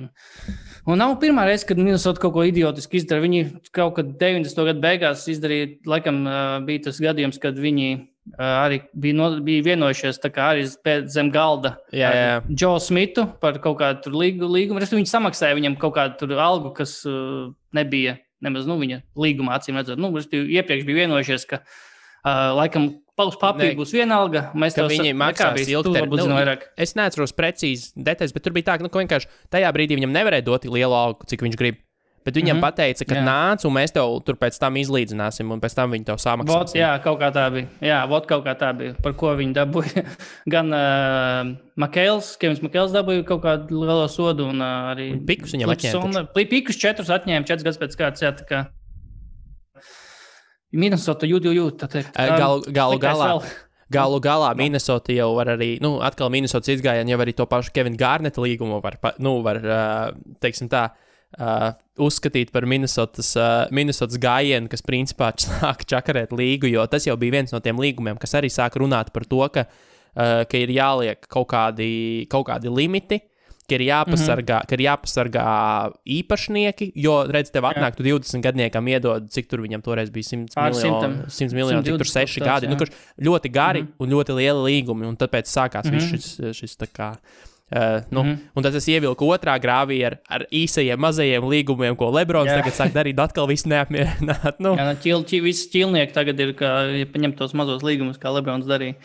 Un nav pirmā reize, kad Minnesota kaut ko idiotiski izdara. Viņi kaut kad 90. gadu beigās izdarīja, laikam, bija tas gadījums, kad viņi arī bija vienojušies arī zem galda Joe Smithu par kaut kādu līgumu. Viņi samaksāja viņam kaut kādu algu, kas nebija nemaz viņa līgumā acīm redzot. Iepriekš bija vienojušies, ka laikam uz papīra būs vienalga. Mēs ka viņi maksās ilgtermiņā. Es neatceros precīzi detaļas, bet tur bija tā, ka vienkārši tajā brīdī viņam nevarēja dot lielu algu, cik viņš grib. Bet viņam pateica, ka nāc, un mēs tev tur pēc tam izlīdzināsim, un pēc tam viņi tev samaksās. Jā, kaut kā tā bija. Jā, kaut kā tā bija, par ko viņi dabūja. Gan Kevins Makēls dabūja kaut kādu lielo sodu, un arī Pikus viņam atņēma. Pikus 4 atņēma 4 gadus pēc kārtas, jā, tā kā Minnesota jūt, tā teikt. Galu galā Minnesota jau var arī, atkal Minnesotas izgājieni jau arī to pašu Kevina Garneta līgumu var teiksim tā, uzskatīt par Minnesotas gājienu, kas principā sāk čakarēt līgu, jo tas jau bija viens no tiem līgumiem, kas arī sāk runāt par to, ka ir jāliek kaut kādi limiti, ka ir jāpasargā īpašnieki, jo, redz, tev atnāk, tu 20 gadniekam iedod, cik tur viņam toreiz bija 100 miljoni, cik tur 6 gadi, kurš ļoti gari un ļoti lieli līgumi, un tāpēc sākās viss šis tā kā... Un tad es ievilku otrā grāvī ar īsajiem, mazajiem līgumiem, ko Lebrons tagad sāk darīt, atkal viss neapmierināt. Visi ķilnieki tagad ir, ja paņem tos mazos līgumus, kā Lebrons darīja.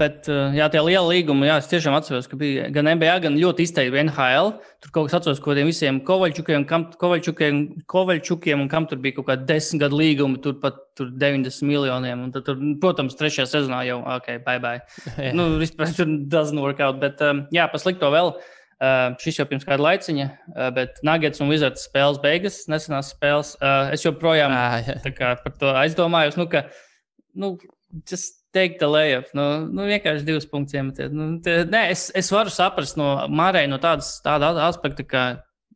Bet, tie liela līgumi, es tiešām atceros, ka bija gan NBA, gan ļoti izteikti NHL. Tur kaut kas atceros, ko tiem visiem Kovaļčukiem, un kam tur bija kaut kādi 10 gadu līgumi, tur pat 90 miljoniem. Un tad, protams, 3. sezonā jau, bye. Vispār tur doesn't work out, bet, pa slikto vēl. Šis jau pirms kāda laiciņa, bet Nuggets un Wizards spēles beigas, nesenās spēles. Es joprojām par to aizdomājos, just take the layup. Vienkārši 2 punktus iemetiet. Es varu saprast no Mārai no tāda aspekta, ka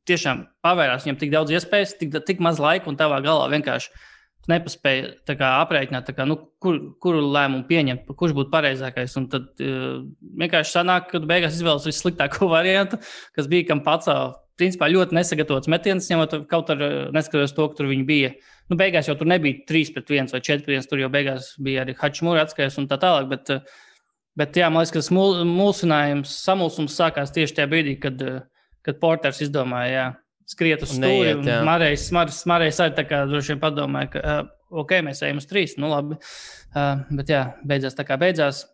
tiešām pavērās viņam tik daudz iespējas, tik maz laika un tavā galā vienkārši nepaspēja aprēķināt, kuru lēmumu pieņemt, kurš būtu pareizākais. Un tad vienkārši sanāk, ka beigās izvēlas vissliktāko variantu, kas bija kam pats, principā ļoti nesagatavots metiens, ņemot kaut ar neskatoties to, ka tur viņi bija. Beigās jau tur nebija 3-1 vai 4-1, tur jau beigās bija arī Hačimura atskaies un tā tālāk, bet jā, man liekas, ka tas samulsums sākās tieši tajā brīdī, kad Porters izdomāja, skriet uz stūri, un Marejs arī tā kā droši vien padomāja, ka mēs ejam uz 3, labi. Bet jā, beidzās tā kā beidzās.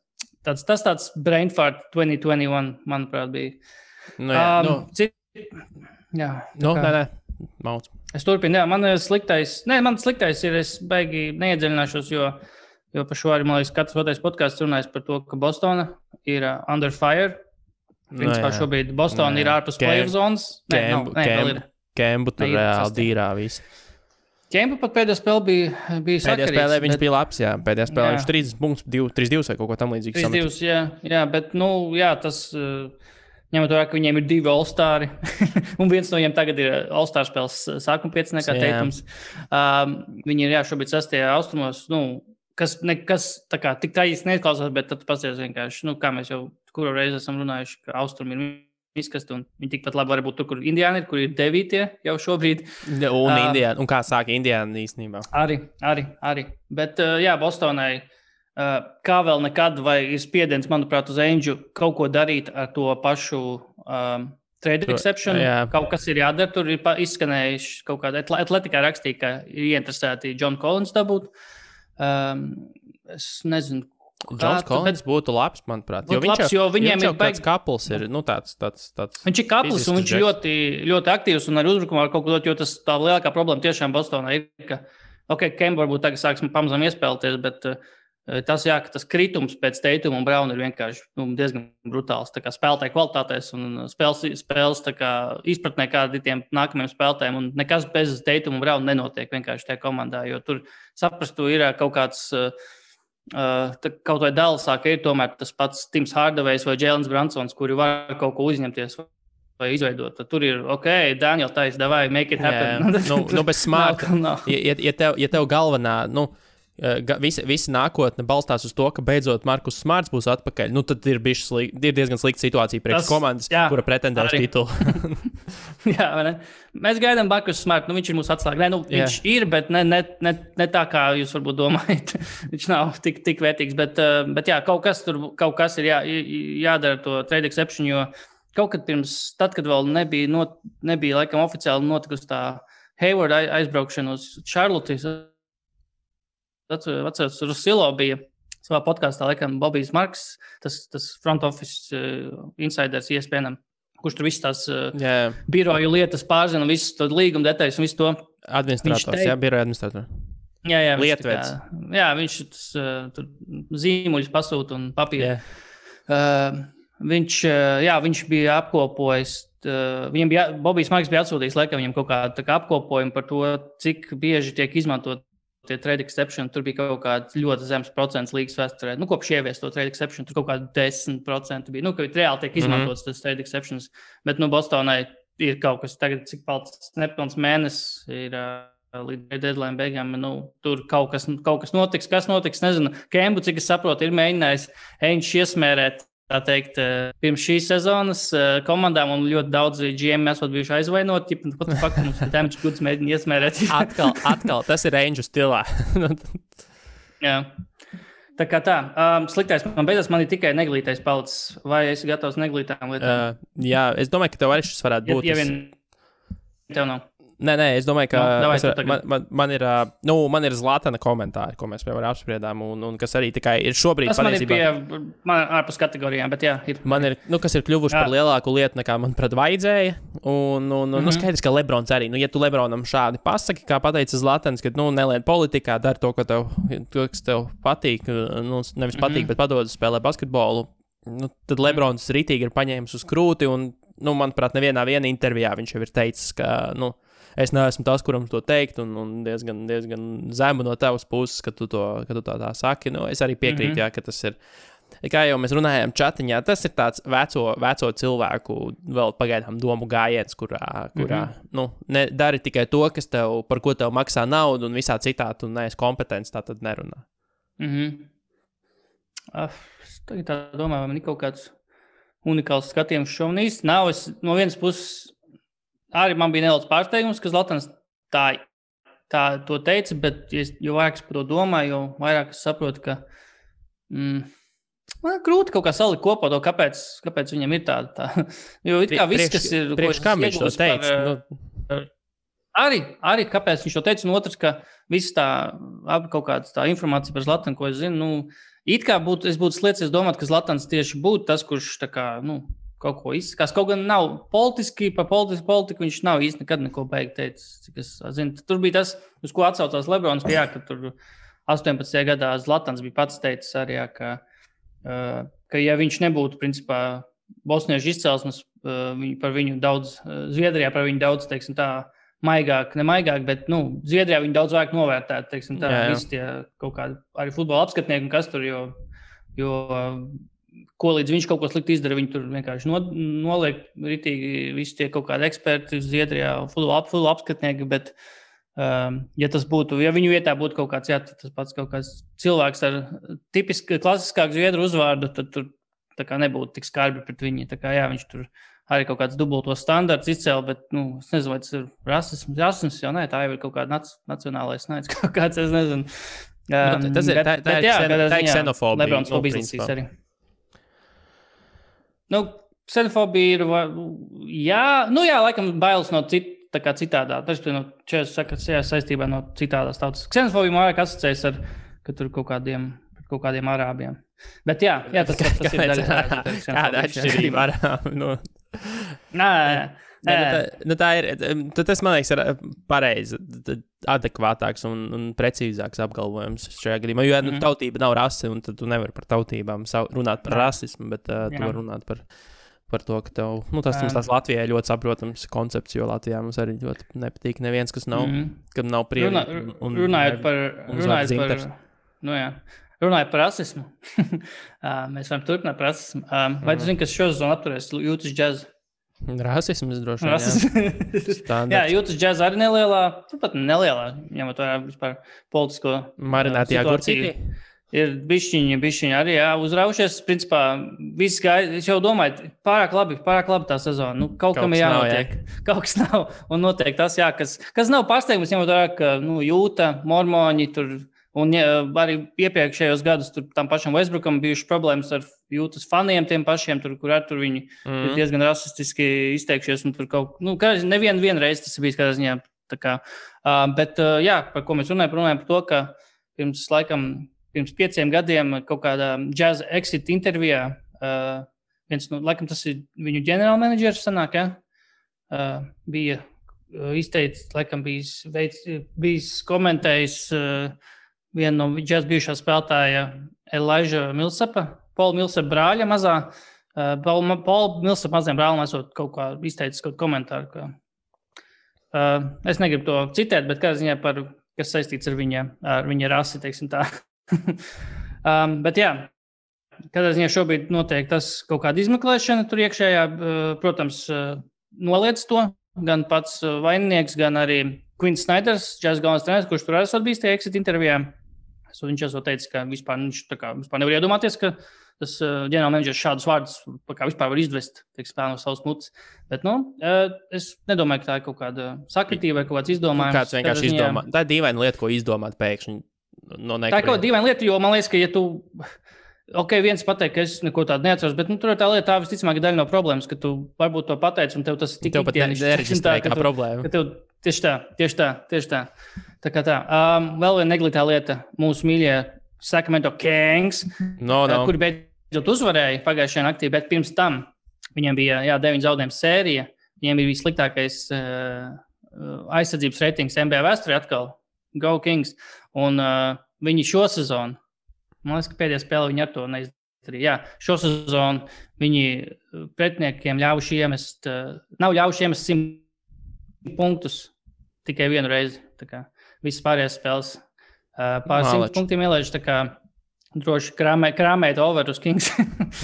Tas tāds brain fart 2021, manuprāt, bija. Mauc. Es turpinu, man sliktais ir, es baigi neiedziļināšos, jo par šo arī, man liekas, katrs otrais podcasts runājas par to, ka Bostona ir under fire. Principā šobrīd Bostona ir ārpus playoff zonas. Kembu tur reāli dīrā viss. Kembu pat pēdējā spēlē bija sakarīgs. Pēdējā spēlē viņš bija labs, jā. Pēdējā spēlē viņš 30 punktus, 3-2 vai kaut ko tam līdzīgu. 3-2, jā, bet, tas, ņemot vērā, ka viņiem ir 2 all-stari, un viens no viņiem tagad ir all-star spēles sākuma 5 nekā Teitums. Viņi ir, šobrīd 6. austrumos, kas tā kā tik tā īsti neizklausās, bet tad pasties vienkārši, kā mēs jau kuru reizi esam runājuši, ka austrumi ir izkasti, un viņi tikpat labi var būt tur, kur Indiāna ir, kur ir 9. jau šobrīd. Un kā sāka Indiāna īstenībā? Arī. Bet, Bostonai, kā vēl nekad, vai ir spiediens, manuprāt, uz Ainģu kaut ko darīt ar to pašu trade exception. Kaut kas ir jādara, tur ir izskanējuši kaut kāda atletikā rakstīja, ka ir ieinteresēti John Collins dabūt. Es nezinu, Džons Collins būtu labs, manuprāt. Viņš jau tāds kapls ir, tāds. Viņš ir kapls un viņš ir ļoti, ļoti aktīvs un ar uzbrukumā ar kaut ko dot, jo tas tā lielākā problēma tiešām Bostonā ir, ka, Kemba varbūt tagad sāks pamazām iespēlēties, bet tas kritums pēc Teituma un Brauna ir vienkārši diezgan brutāls. Tā kā spēlētāju kvalitātēs un spēles tā kā izpratnē kādiem nākamajiem spēlētājiem un nekas bez Teituma un Brauna nenotiek vienkārši tajā komandā, jo tur saprastu ir kaut kāds kaut vai Dallasā, ka ir tomēr tas pats Tims Hardavejs vai Jēlens Bransons, kuri var kaut ko uzņemties vai izveidot. Tad tur ir, Daniel Tais, davai, make it happen. Bez smārta. Ja tev galvenā, visa nākotne balstās uz to, ka beidzot Markus Smarts būs atpakaļ, tad ir diezgan slikta situācija priekš komandas, kura pretendē uz titulu. Jā, vai ne? Mēs gaidām Markus Smartu, viņš ir mūsu atslēga. Viņš ir, bet ne tā, kā jūs varbūt domājat. Viņš nav tik vērtīgs, bet jā, kaut kas ir jādara to trade exception, jo kaut kad pirms, tad, kad vēl nebija laikam oficiāli notikusi tā Hayward aizbraukšanu uz Charlotte. Atceros, Rusilo bija savā podkāstā, laikam, Bobijs Marks, tas front office insiders ESPN, kurš tur viss tās biroju lietas pārzina, visu to līguma detaļas un visu to. Administrators, biroja administrators. Jā, Lietveids. Viņš tur zīmuļus pasūta un papīru. Viņš bija apkopojis. Bobijs Marks bija atsūtījis, laikam, viņam kaut kādu apkopojumu par to, cik bieži tiek izmantot tie trade exception. Tur bija kaut kāds ļoti zems procents līgas vēsturē. Kopš ievies to trade exception, tur kaut kādi 10% bija. Ka reāli tiek izmantots tas trade exceptions. Bet, Bostonai ir kaut kas tagad, cik palicis nepilns mēnesis ir līdz deadline beigām. Tur kaut kas notiks. Kas notiks, nezinu. Kembu, cik es saprotu, ir mēģinājis Ainge iesmērēt, tā teikt, pirms šīs sezonas komandām, un ļoti daudz GM esot bijuši aizvainoti. Pat faktu mums damage goods mēģina iesmērēt. Atkal, tas ir Ainge stilā. Jā. Tā kā tā. Sliktais man beidzās, man ir tikai neglītais palicis. Vai esi gatavs neglītām lietām? Jā, es domāju, ka tev arī šis varētu būt. Ja vien tev nav. Nē, es domāju, ka man ir Zlatana komentāri, ko mēs jau apspriedām, un kas arī tikai ir šobrīd patiesībā. Tas man ir ārpus kategorijām, bet jā, ir. Man ir, kas ir kļuvuši par lielāku lietu, nekā manuprāt vajadzēja, un skaidrs, ka Lebrons arī, ja tu Lebronam šādi pasaki, kā pateica Zlatans, ka, nelien politikā, dari to, kas tev patīk, nevis patīk, bet padod spēlē basketbolu, tad Lebrons ritīgi ir paņēmis uz krūti, un, manuprāt, nevienā intervijā viņš jau ir teicis, ka, es neesmu tas, kuram to teikt, un diezgan zemu no tavas puses, ka tu tā saki. Es arī piekrītu, jā, ka tas ir, kā jau mēs runājām čatiņā, tas ir tāds veco cilvēku vēl pagaidām domu gājiens, kurā dari tikai to, par ko tev maksā naudu, un visā citā tu neesi kompetents, tā tad nerunā. Es tagad tā domāju, vai man ir kaut kāds unikāls skatījums šo un īsti nav. Es no vienas puses arī man bija nedaudz pārsteigums, ka Zlatans tā to teica, bet jo vairāk es par to domāju, jo vairāk es saprotu, ka man grūti kaut kā salikt kopā to, kāpēc viņam ir tā. Jo it kā viss, kas ir... Priekš kam viņš to teica? Arī kāpēc viņš to teica, un otrs, ka viss kaut kāda tā informācija par Zlatanu, ko es zinu, it kā es būtu sliecies domāt, ka Zlatans tieši būtu tas, kurš tā kā, kaut ko izskās. Kaut gan nav politiski, par politiku viņš nav īsti nekad neko beigt teicis, cik es zinu. Tur bija tas, uz ko atsaucās Lebrons, ka tur 18. gadā Zlatans bija pats teicis arī, ka ja viņš nebūtu, principā, bosniešu izcelsmes, par viņu daudz, Zviedrijā par viņu daudz, teiksim tā, maigāk, bet, Zviedrijā viņu daudz vairāk novērtēt, teiksim tā, visi tie kaut kādi arī futbola apskatnieki un kas tur, jo ko līdz viņš kaut ko slikti izdara, viņi tur vienkārši noliek ritīgi visi tie kaut kādi eksperti Zviedrijā, futbola apskatnieki, bet ja tas būtu, ja viņu vietā būtu kaut kāds, tas pats kaut kāds cilvēks ar tipiski klasiskāku zviedru uzvārdu, tad tur tā kā nebūtu tik skarbi pret viņi. Tā kā viņš tur arī kaut kāds dubultos standarts izcēla, bet, es nezinu, vai tas ir rasisms, jau nē, tā jau ir kaut kāda nacionālais naids, kaut kāds, es nezinu. Tas ir ksenofobija. Lebrons fobijas arī. Ksenofobija ir, laikam bailes no citādā. Tas ir no čēs saistībā no citādās tautas. Ksenofobija man vairāk asociējas ar, ka tur kaut kādiem arābiem. Bet tas ir daļa. Kāda atšķirība arābi? Tā ir, tas, man liekas, ir pareizi, adekvātāks un precīzāks apgalvojums šajā gadījumā. Jo tautība nav rase, un tad tu nevari par tautībām runāt par rasismu, bet tu vari runāt par to, ka tev, tas Latvijai ļoti saprotams koncepts, jo Latvijā mums arī ļoti nepatīk neviens, kas nav, kad nav prievi. Runājot par rasismu. Mēs varam turpināt par rasismu. Vai tu zini, kas šo sezonu apturēs Jūtas džazu? Rasisms droši vien, jā. Jūtas džaza arī nelielā, turpat nelielā, ņemot vērā vispār politisko marinātajā situāciju. Ir bišķiņi arī uzraušies. Principā, viss gāja, es jau domāju, pārāk labi tā sezona. Kaut kam ir jānotiek. Kaut kas nav. Un notiek tas, kas nav pārsteigums, ņemot vērā, ka Jūta, mormoņi tur. Un arī iepriekšējos gadus tam pašam Westbrookam bijuši problēmas ar Jūtas faniem, tiem pašiem, kur viņi ir diezgan rasistiski izteikšies. Un tur nevienu reizi tas bijis kādā ziņā Tā kā, bet, jā, par ko mēs runājam par to, ka pirms 5 gadiem kaut kādā Jazz Exit intervijā viens, laikam tas ir viņu ģenerālmenedžers sanāk, bija izteicis, laikam bijis komentējis vienu no Jazz bijušā spēlētāja Elijah Millsapa, Paula Millsapa brāļa mazā. Paula Millsapa mazajam brālim esot kaut kā izteicis kaut komentāru. Es negribu to citēt, bet kādā ziņā kas saistīts ar viņa rasi, teiksim tā. Bet jā, kādā ziņā šobrīd notiek tas kaut kāda izmeklēšana tur iekšējā, protams, noliec to, gan pats vaininieks, gan arī Quinn Snyders, Jazz galvenais treneris, kurš tur esot bijis tie exit intervijā. Viņš esot teicis, ka vispār nevar iedomāties, ka tas ģenerālmenedžers šādus vārdus vispār var izvest, teiksim, no savas mutes. Bet, es nedomāju, ka tā ir kaut kāda sakritība vai kaut kāds izdomājums. Kāds vienkārši izdomā. Tā ir dīvaina lieta, ko izdomāt pēkšņi. No tā ir kaut kāda dīvaina lieta, jo man liekas, ka ja tu, viens pateikt, ka es neko tādu neatceros, bet tur ir tā lieta, tā visticamāk daļa no problēmas, ka tu varbūt to pateici un tev tas tik tev pat nereģistrē kā problēma. Tieši tā. Tā kā tā. Vēl viena neglītā lieta mūsu mīļie Sacramento Kings, kuri beidzot uzvarēja pagājušajā naktī, bet pirms tam viņiem bija 9 zaudējumu sērija. Viņiem bija sliktākais aizsardzības reitings NBA vēsturē atkal. Go Kings. Un viņi šo sezonu, man liekas, ka pēdējā spēlē viņi ar to neizdarīja. Jā, šo sezonu viņi pretiniekiem nav ļaujuši iemest 100 punktus tikai vienu reizi. Tā kā visas pārējās spēles pār 100 punktiem ielaiž, tā kā droši krāmēt over uz Kings.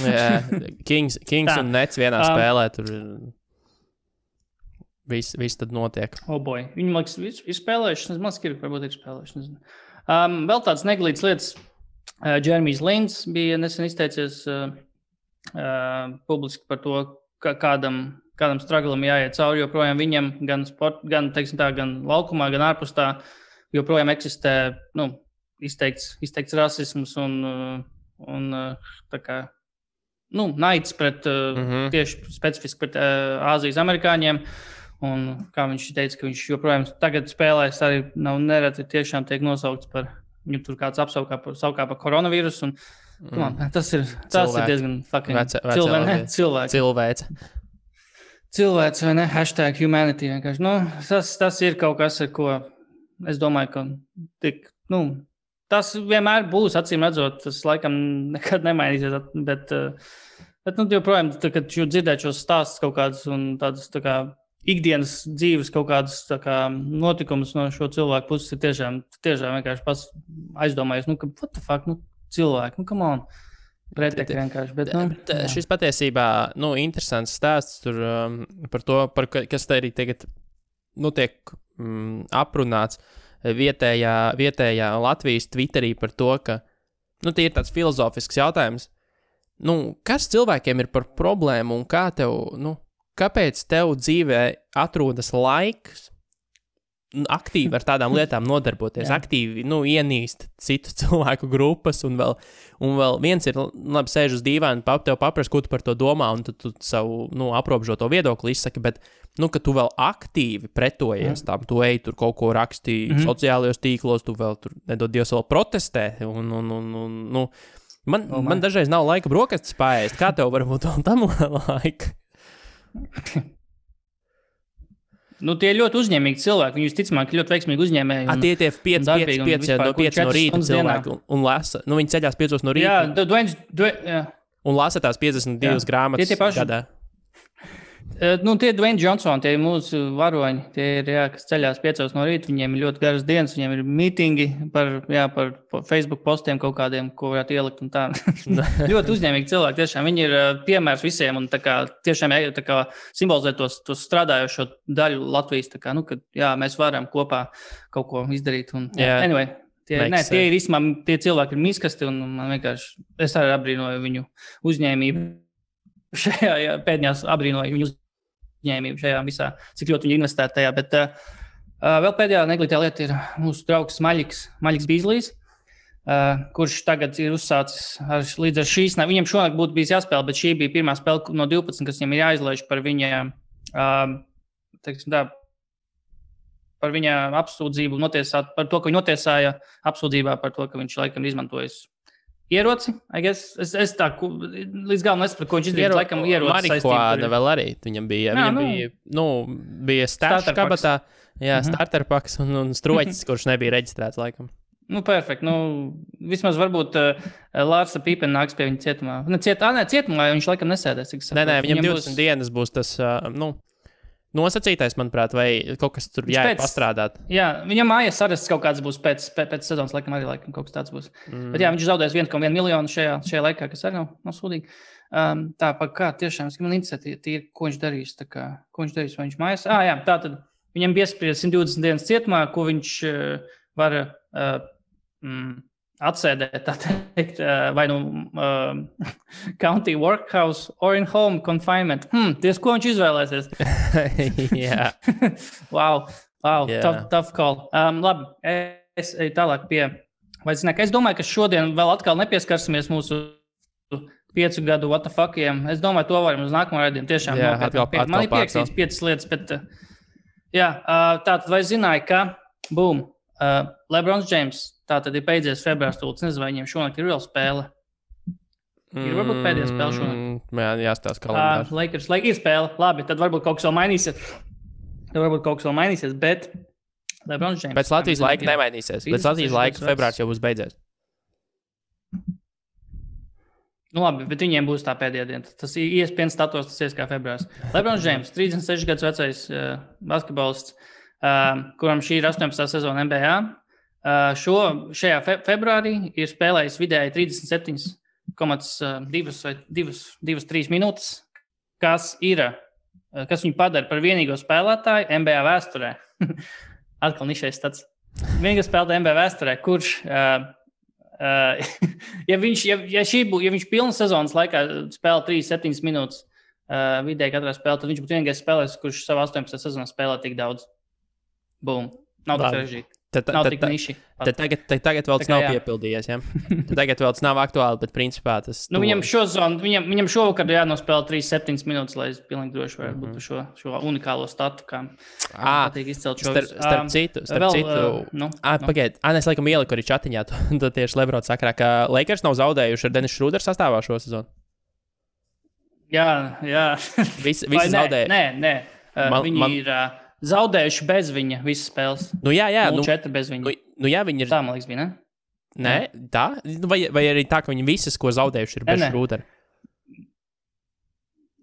Jā, Kings un Nets vienā spēlē, tur viss tad notiek. Boy, viņi, man liekas, ir spēlējuši, varbūt ir spēlējuši. Vēl tāds neglīts lietas, Jeremijs Lins bija nesen izteicies publiski par to, kādam struglam jāiet cauri, joprojām viņam gan laukumā, gan ārpus tā, joprojām eksistē izteikts rasisms un tā kā naids pret tieši specifiski pret Āzijas amerikāņiem. Un kā viņš teica, ka viņš joprojām tagad spēlēs arī nereti tiešām tiek nosaukts par viņu tur kāds apsaukā par koronavīrusu. Tas ir diezgan fucking cilvēks. Cilvēks vai ne? #humanity vienkārši. Tas ir kaut kas, ar ko es domāju, ka tas vienmēr būs, acīm redzot, tas laikam nekad nemainīsies, bet joprojām, kad dzirdēt šos stāstus kaut kādus un tādas tā kā ikdienas dzīves kaut kādas tā kā notikumus no šo cilvēku puses ir tiešām vienkārši pats aizdomājies, ka what the fuck, cilvēki, come on. Pretekļi vienkārši, bet, šis patiesībā, interesants stāsts tur par to, kas te arī tagad, tiek aprunāts vietējā Latvijas Twitterī par to, ka, tie ir tāds filozofisks jautājums. Kas cilvēkiem ir par problēmu un kāpēc tev dzīvē atrodas laiks aktīvi ar tādām lietām nodarboties, aktīvi, ienīst citu cilvēku grupas un vēl viens ir, labi, sēž uz dīvaina, tev paprast, ko tu par to domā un tu savu, aprobežoto viedokli izsaki, bet, ka tu vēl aktīvi pretojies tam, tu ej tur kaut ko raksti sociālajos tīklos, tu vēl tur, nedod Dievs, vēl protestē man dažreiz nav laika brokastis paēst, kā tev varbūt vēl tam laika? Tie ir ļoti uzņēmīgi cilvēki. Viņi visticamāk ļoti veiksmīgi uzņēmēji. Tie 5 no rīta cilvēki un lasa. Viņi ceļās 5 no rīta. Jā, un lasa tās 52 grāmatas gadā. Tie Dwayne Johnson, tie ir mūsu varoņi. Tie ir, kas ceļās 5 no rīta. Viņiem ir ļoti garas dienas. Viņiem ir mītingi par Facebook postiem kaut kādiem, ko varētu ielikt un tā. Ļoti uzņēmīgi cilvēki. Tiešām viņi ir piemērs visiem un tā kā tiešām tā kā simbolizē tos strādājošo daļu Latvijas. Tā kā, kad mēs varam kopā kaut ko izdarīt. Un, anyway, tie ir īstenībā, tie cilvēki ir miskasti un man vienkārši, es arī abrīnoju viņu uzņēmību. Šajā pēdējās abrīnoju viņu uzņēmību šajā visā, cik ļoti viņi investē tajā, bet vēl pēdējā neglītā lieta ir mūsu draugs Maļiks Bīzlijs, kurš tagad ir uzsācis līdz ar šīs, viņam šonakt būtu bijis jāspēlē, bet šī bija pirmā spēle no 12, kas viņam ir jāizlaiž par viņa, par viņa apsūdzību notiesāt, par to, ka viņu notiesāja apsūdzībā par to, ka viņš laikam izmantojis ieroci. Es tā līdz galam nesapratu, ko viņš izdarīja. Laikam ieroci marihuāna vēl arī. Viņam bija stāsts kabatā, starter paks un stroķis, kurš nebija reģistrēts laikam. Perfekti. Vismaz varbūt Lārsa Pīpena nāks pie viņa cietumā. Cietumā, jo viņš laikam nesēdēs. Viņam 20 dienas būs tas, nosacītais, manuprāt, vai kaut kas tur pastrādāt. Jā, viņam mājas arests kaut kāds būs pēc sezonas, laikam arī kaut kas tāds būs. Bet viņš zaudēs 1,1 miljonu šajā laikā, kas arī nav sūdīgi. Kā tiešām, man interesē, ko viņš darīs, ko viņš darīs, vai viņš mājas. Tātad viņam piespriedz 120 dienas cietumā, ko viņš var atsēdēt, tā teikt, vai county workhouse or in home confinement. Ties, ko viņš izvēlēsies? Jā. Wow, tough call. Labi, es eju tālāk pie, es domāju, ka šodien vēl atkal nepieskarsimies mūsu 5 gadu what the fuck'iem. Es domāju, to varam uz nākamo raidījumu. Tiešām man ir pierakstīts 5 lietas, bet tātad vai zināja, ka LeBrons James tātad ir beidzies februārs tūlīt. Nezinu, vai viņiem šonakt ir vēl spēle. Ir varbūt pēdējā spēle šonakt. Jāstāsta kalendārs. Lakers ir spēle. Labi, tad varbūt kaut kas vēl mainīsies. Bet LeBrons James. Pēc Latvijas laika nemainīsies. Pēc Latvijas laika februārs jau būs beidzies. Labi, bet viņiem būs tā pēdējā diena. Tas ESPN status, tas ies kā februārs. LeBrons James, 36 gadus vecais basketbolists, kuram šī ir 18. sezona NBA. Šajā februārī ir spēlējis vidēji 37,2 vai 2,3 minūtes, kas viņu padara par vienīgo spēlētāju NBA vēsturē. Atkal nišais tāds. Vienīgais spēlētājs NBA vēsturē, kurš, ja viņš pilnu sezonas laikā spēlē 3,7 minūtes vidēji katrā spēlē, tad viņš būtu vienīgais spēlētājs, kurš savā 18. sezonā spēlē tik daudz. Boom. Nav tā sarežģīti. Nav tik niši. Tagad vēl tas nav piepildījies, ja? Tagad vēl tas nav aktuāli, bet principā tas... Viņam šovakar jānospēlē 3,7 minūtes, lai es pilnīgi droši varētu būt šo unikālo statu, kā patīk izcelt šo... Starp citu... Pagaid, es laikam ieliku arī čatiņā, to tieši Lebrons sakarā, ka Lakers nav zaudējuši ar Dennis Schroeder sastāvā šo sezonu. Jā. Visi zaudēja. Nē. Viņi ir... zaudējuši bez viņa visas spēles. Jā. 0-4 bez viņa. Viņi ir... Tā, man liekas, bija, ne? Nē, tā? Vai arī tā, ka viņi visas, ko zaudējuši, ir bez Schrudera?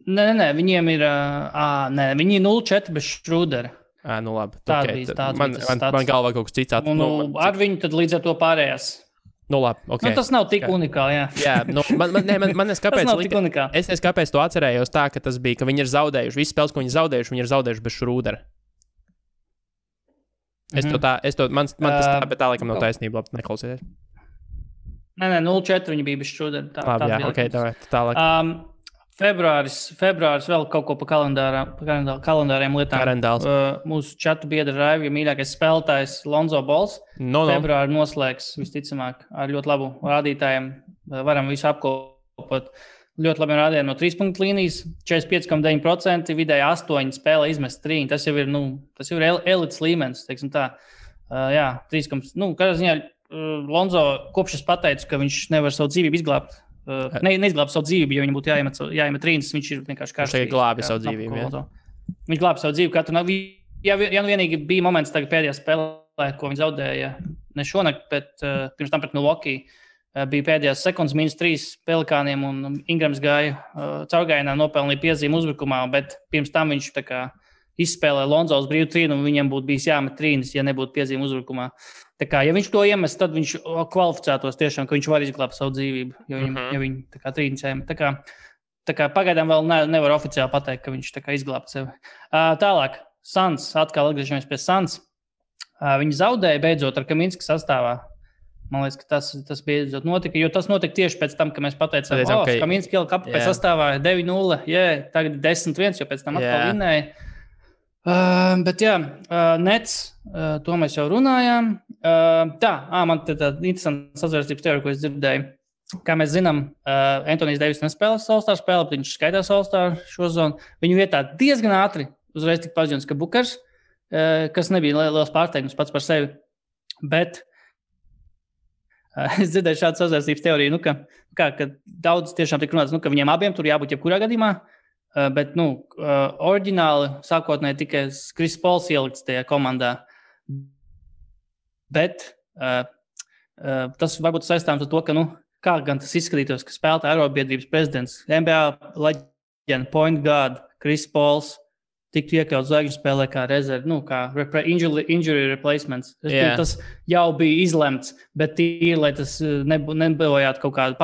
Nē, viņiem ir... viņi ir 0-4 bez Schrudera. Labi. Man galvā kaut kas cits ar viņu tad līdz ar to pārējās. Labi, okay. Tas nav tik unikāli, jā. Man es kāpēc to atcerējos tā, ka tas bija, ka viņi ir zaudējuši. Visas spēles, ko viņi ir zaudējuši bez Schrudera. Man tas tā, bet tā laikam nav taisnība, labi, neklausieties. Nē, 0-4 viņi bija bez Schrudera. Labi, jā, ok, tālāk. Februāris vēl kaut ko pa kalendāriem lietām. Mūsu čatu biedra Raivi, mīļākais spēlētājs Lonzo Balls. Februāri noslēgs visticamāk ar ļoti labu rādītājiem. Varam visu apkopot. Ļoti labi rādījumi no 3 līnijas. 45,9%, vidēji 8 spēlē izmest 3. Tas jau ir elites līmenis, teiksim tā. 3, kādā ziņā Lonzo kopš es pateicu, ka viņš nevar savu dzīvību izglābt. Neizglāba savu dzīvību, jo viņam būtu jāiemet trīnis, viņš ir vienkārši kārstīgi. Viņš glābi savu dzīvību, jā. Viņš glābi savu dzīvību. Ja vienīgi bija moments tagad pēdējā spēlē, ko viņi zaudēja ne šonakt, bet pirms tam pret Milwaukee bija pēdējās sekundes -3 Pelikāniem un Ingrams gāja caurgājienā, nopelnīja piezīmu uzbrukumā, bet pirms tam viņš tā kā izspēlē Lonzo uz brīvu trīnu un viņam būtu bijis jāmet trīnis, ja nebūtu piezīme uzbrukumā. Tā kā, ja viņš to iemest, tad viņš kvalificētos tiešām, ka viņš var izglābt savu dzīvību, ja viņi tā kā trīnis jāmet. Tā kā pagaidām vēl nevar oficiāli pateikt, ka viņš tā kā izglābt sevi. Tālāk, Suns, atkal atgriežamies pie Suns. Viņi zaudēja beidzot ar Kaminskas sastāvā. Man liekas, ka tas beidzot notika, jo tas notika tieši pēc tam, ka mēs pateicām, Kaminska ielika apakaļ sastāvā 9-0, tagad 10-1, jo pēc tam atkal vinnēja. Bet Nets, to mēs jau runājām. Man tāda interesanta sazvērstības teorija, ko es dzirdēju. Kā mēs zinām, Antonijs Deivis nespēlēs All-Star spēli, bet viņš skaitās All-Star šo zonu. Viņu vietā diezgan ātri uzreiz tika paziņots, ka Bukers kas nebija liels pārsteigums pats par sevi. Bet es dzirdēju šādu sazvērstības teoriju, ka daudz tiešām tika runāts, ka viņiem abiem tur jābūt jebkurā gadījumā, bet, oriģināli sākotnēji tikai Kris Pols ielikts tajā komandā. Bet tas varbūt saistāms ar to, ka, kā gan tas izskatītos, ka spēlētāja arotbiedrības prezidents, NBA leģenda, point guard, Kris Pols, tiktu iekļauts zvaigžņu spēlē kā rezerve, kā injury replacements. Tas jau bija izlemts, bet tīri, lai tas nebojātu kaut kādu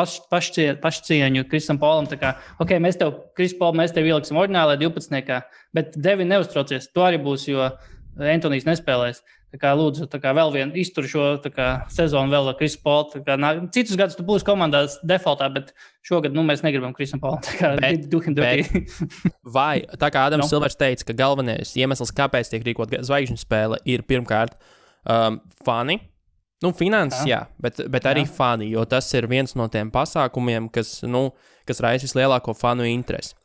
pašcieņu Krisam Polam. Mēs tev, Kris Pol, mēs tev ieliksim oriģinālajā 12. Bet Devin neuztraucies, to arī būs, jo Antonijs nespēlēs. Lūdzu, vēl vienu izturu šo sezonu vēl ar Krisu Polu. Citus gadus tu būsi komandās defaultā, bet šogad mēs negribam Krisam Polam. Vai, tā kā Adams Silvers teica, ka galvenais iemesls, kāpēc tiek rīkot zvaigžņu spēle, ir pirmkārt fani. Finanses, jā, bet arī fani, jo tas ir viens no tiem pasākumiem, kas raisa vislielāko fanu interesi.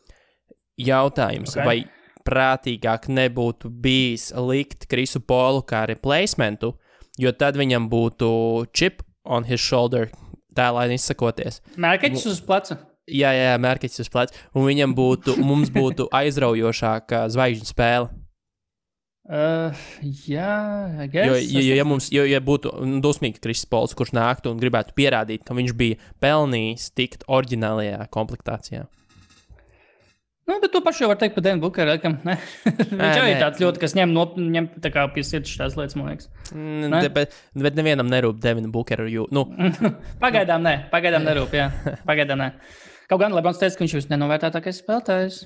Jautājums, vai prātīgāk nebūtu bijis likt Krisu Polu kā replacementu, jo tad viņam būtu chip on his shoulder, tēlāini izsakoties. Mērķis uz pleca. Jā, mērķis uz pleca. Un mums būtu aizraujošāka zvaigžņu spēle. Jā, I guess. Ja būtu dusmīgi Kris Pols, kurš nāktu un gribētu pierādīt, ka viņš bija pelnījis tikt oriģinālajā komplektācijā. Bet to pašu jau var teikt par Devinu Bukeru. Viņš jau ir tāds ļoti, kas ņem tā kā pie sirds šās lietas, man liekas. Bet nevienam nerūp Devinu Bukeru. Pagaidām nerūp, jā. Pagaidām ne. Kaut gan Lebrons teica, ka viņš ir nenovērtētākais spēlētājs.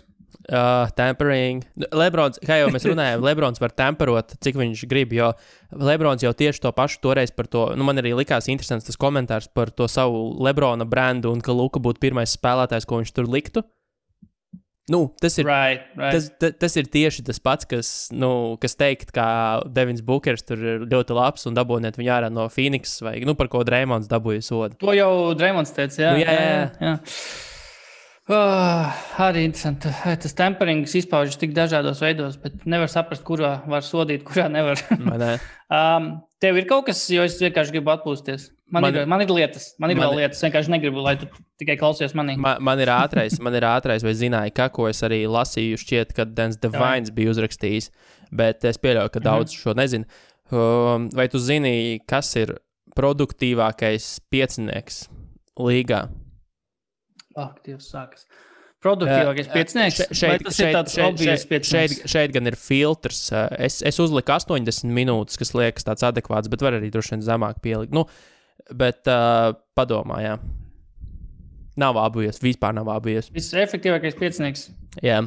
Tampering. Lebrons, kā jau mēs runājām, Lebrons var temperot, cik viņš grib, jo Lebrons jau tieši to pašu toreiz par to, man arī likās interesants tas komentārs par to savu Lebrona brandu un ka Luka būtu pirmais spēlētājs, ko viņš tur liktu. Tas ir, tas ir tieši tas pats, kas teikt, ka Devins Bukers tur ir ļoti labs un dabūniet viņu ārā no Phoenix vai par ko Dreymonds dabūja sodu. To jau Dreymonds teica, jā. Jā. Arī interesanti. Tas temperings izpaužas tik dažādos veidos, bet nevar saprast, kurā var sodīt, kurā nevar. Tev ir kaut kas, jo es vienkārši gribu atpūsties. Man ir lietas. Man ir vēl lietas. Es vienkārši negribu, lai tu tikai klausies manī. Man ir ātrais, vai zināji, ko es arī lasīju, šķiet, ka Dens Devines bija uzrakstījis, bet es pieļauju, ka daudz šo nezinu. Vai tu zini, kas ir produktīvākais piecinieks līgā? Dievs sākas. Produktīvākais piecinieks? Vai tas ir tāds obvious piecinieks? Šeit gan ir filtrs. Es uzliku 80 minūtes, kas liekas tāds adekvāts, bet var arī droši vien zemāk pielikt. Bet padomā, jā. Nav obvious, vispār nav obvious. Visefektīvākais piecinieks? Jā.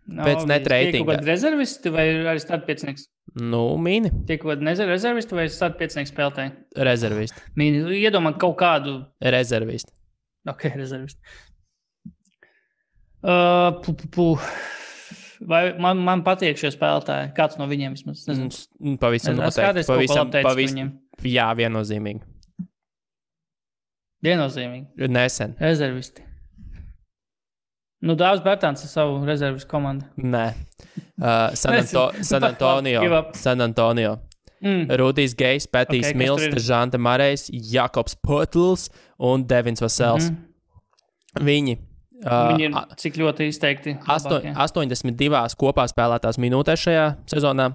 Pēc net reitinga. Tiek kaut kādi rezervisti vai arī start piecinieks? Mini. Tiek kaut kādi rezervisti vai start piecinieks spēlētāji? Rezervisti. Mini, iedomā kaut kādu... Rezervisti. Ok, rezervisti. Vai man patīk šie spēlētāji? Kāds no viņiem vismaz? Pavisam noteikti. Jā, viennozīmīgi. Viennozīmīgi? Nesen. Rezervisti. Dāvs Bertāns ar savu rezervistu komandu. Nē. San Antonio. Rudijs Gejs, Petijs Mills, Žante Marejs, Jakobs Potls un Devins Vasels. Viņi ir cik ļoti izteikti 82 kopā spēlētās minūtēs šajā sezonā.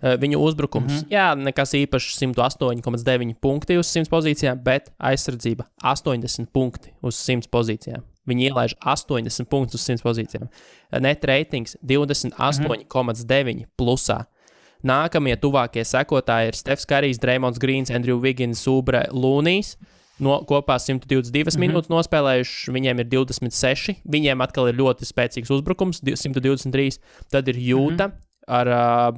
Viņu uzbrukums, nekas īpašs 108,9 punkti uz 100 pozīcijām, bet aizsardzība 80 punkti uz 100 pozīcijām. Viņi ielaiž 80 punktus uz 100 pozīcijām. Net ratings 28,9 plusā. Nākamie tuvākie sekotāji ir Stefs Karijs, Dreymonds Grīns, Andrew Wiggins, Oubre, Lūnijs. Kopā 122 minūtes nospēlējuši, viņiem ir 26. Viņiem atkal ir ļoti spēcīgs uzbrukums, 123. Tad ir Jūta ar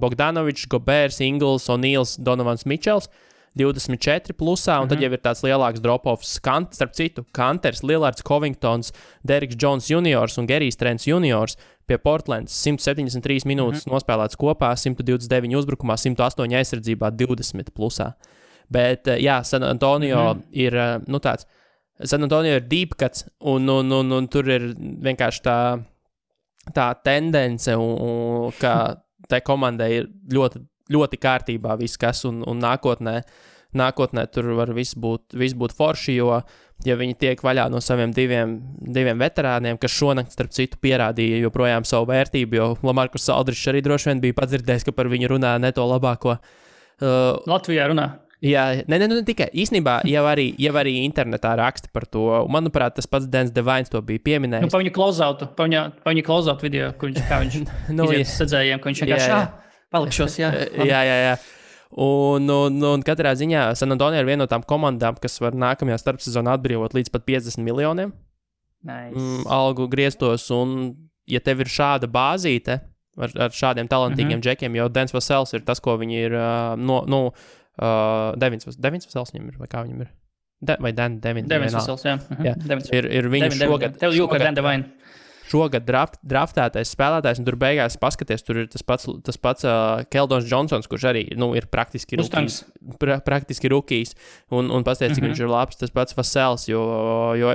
Bogdanovičs, Gobērs, Ingls, O'Neils, Donovans Mičels. 24 plusā, un tad jau ir tāds lielāks drop-offs. Starp citu, Kanters, Lillards, Covingtons, Deriks Jones juniors un Gerijs Trents juniors pie Portlands 173 minūtes nospēlēts kopā, 129 uzbrukumā, 108 aizsardzībā, 20 plusā. Bet, San Antonio ir, tāds, San Antonio ir deep cuts, un tur ir vienkārši tā tendence, ka tai komandai ir ļoti, ļoti kārtībā viss, kas un nākotnē tur var viss būt forši, jo ja viņi tiek vaļā no saviem diviem veterāniem, kas šonakt, starp citu, pierādīja joprojām savu vērtību, jo Lamarkus Aldrišs arī droši vien bija padzirdējis, ka par viņu runā ne to labāko. Latvijā runā. Jā, ne tikai. Īstenībā jau arī internetā raksta par to. Manuprāt, tas pats Dens Devines to bija pieminējis. Pa viņa close-out video, kur viņš iziet sadzējiem, ka viņš vienkārši palikšos, jā. Jā. Un katrā ziņā San Antonio ir viena no tām komandām, kas var nākamajā starpsezonā atbrīvot līdz pat 50 miljoniem. Nice. Algu grieztos, un ja tev ir šāda bāzīte ar šādiem talantīgiem džekiem, jo Dens Vasels ir tas, ko viņi ir Devins Vasels viņam ir, vai kā viņam ir? Devins Vasels, jā. Ir viņš šogad... Tev jūka ar Dan Devine. Šogad draftētais spēlētājs, un tur beigās paskaties, tur ir tas pats Keldons Johnsons, kurš arī, ir praktiski rukijs, un pasties, cik viņš ir labs, tas pats Vasels, jo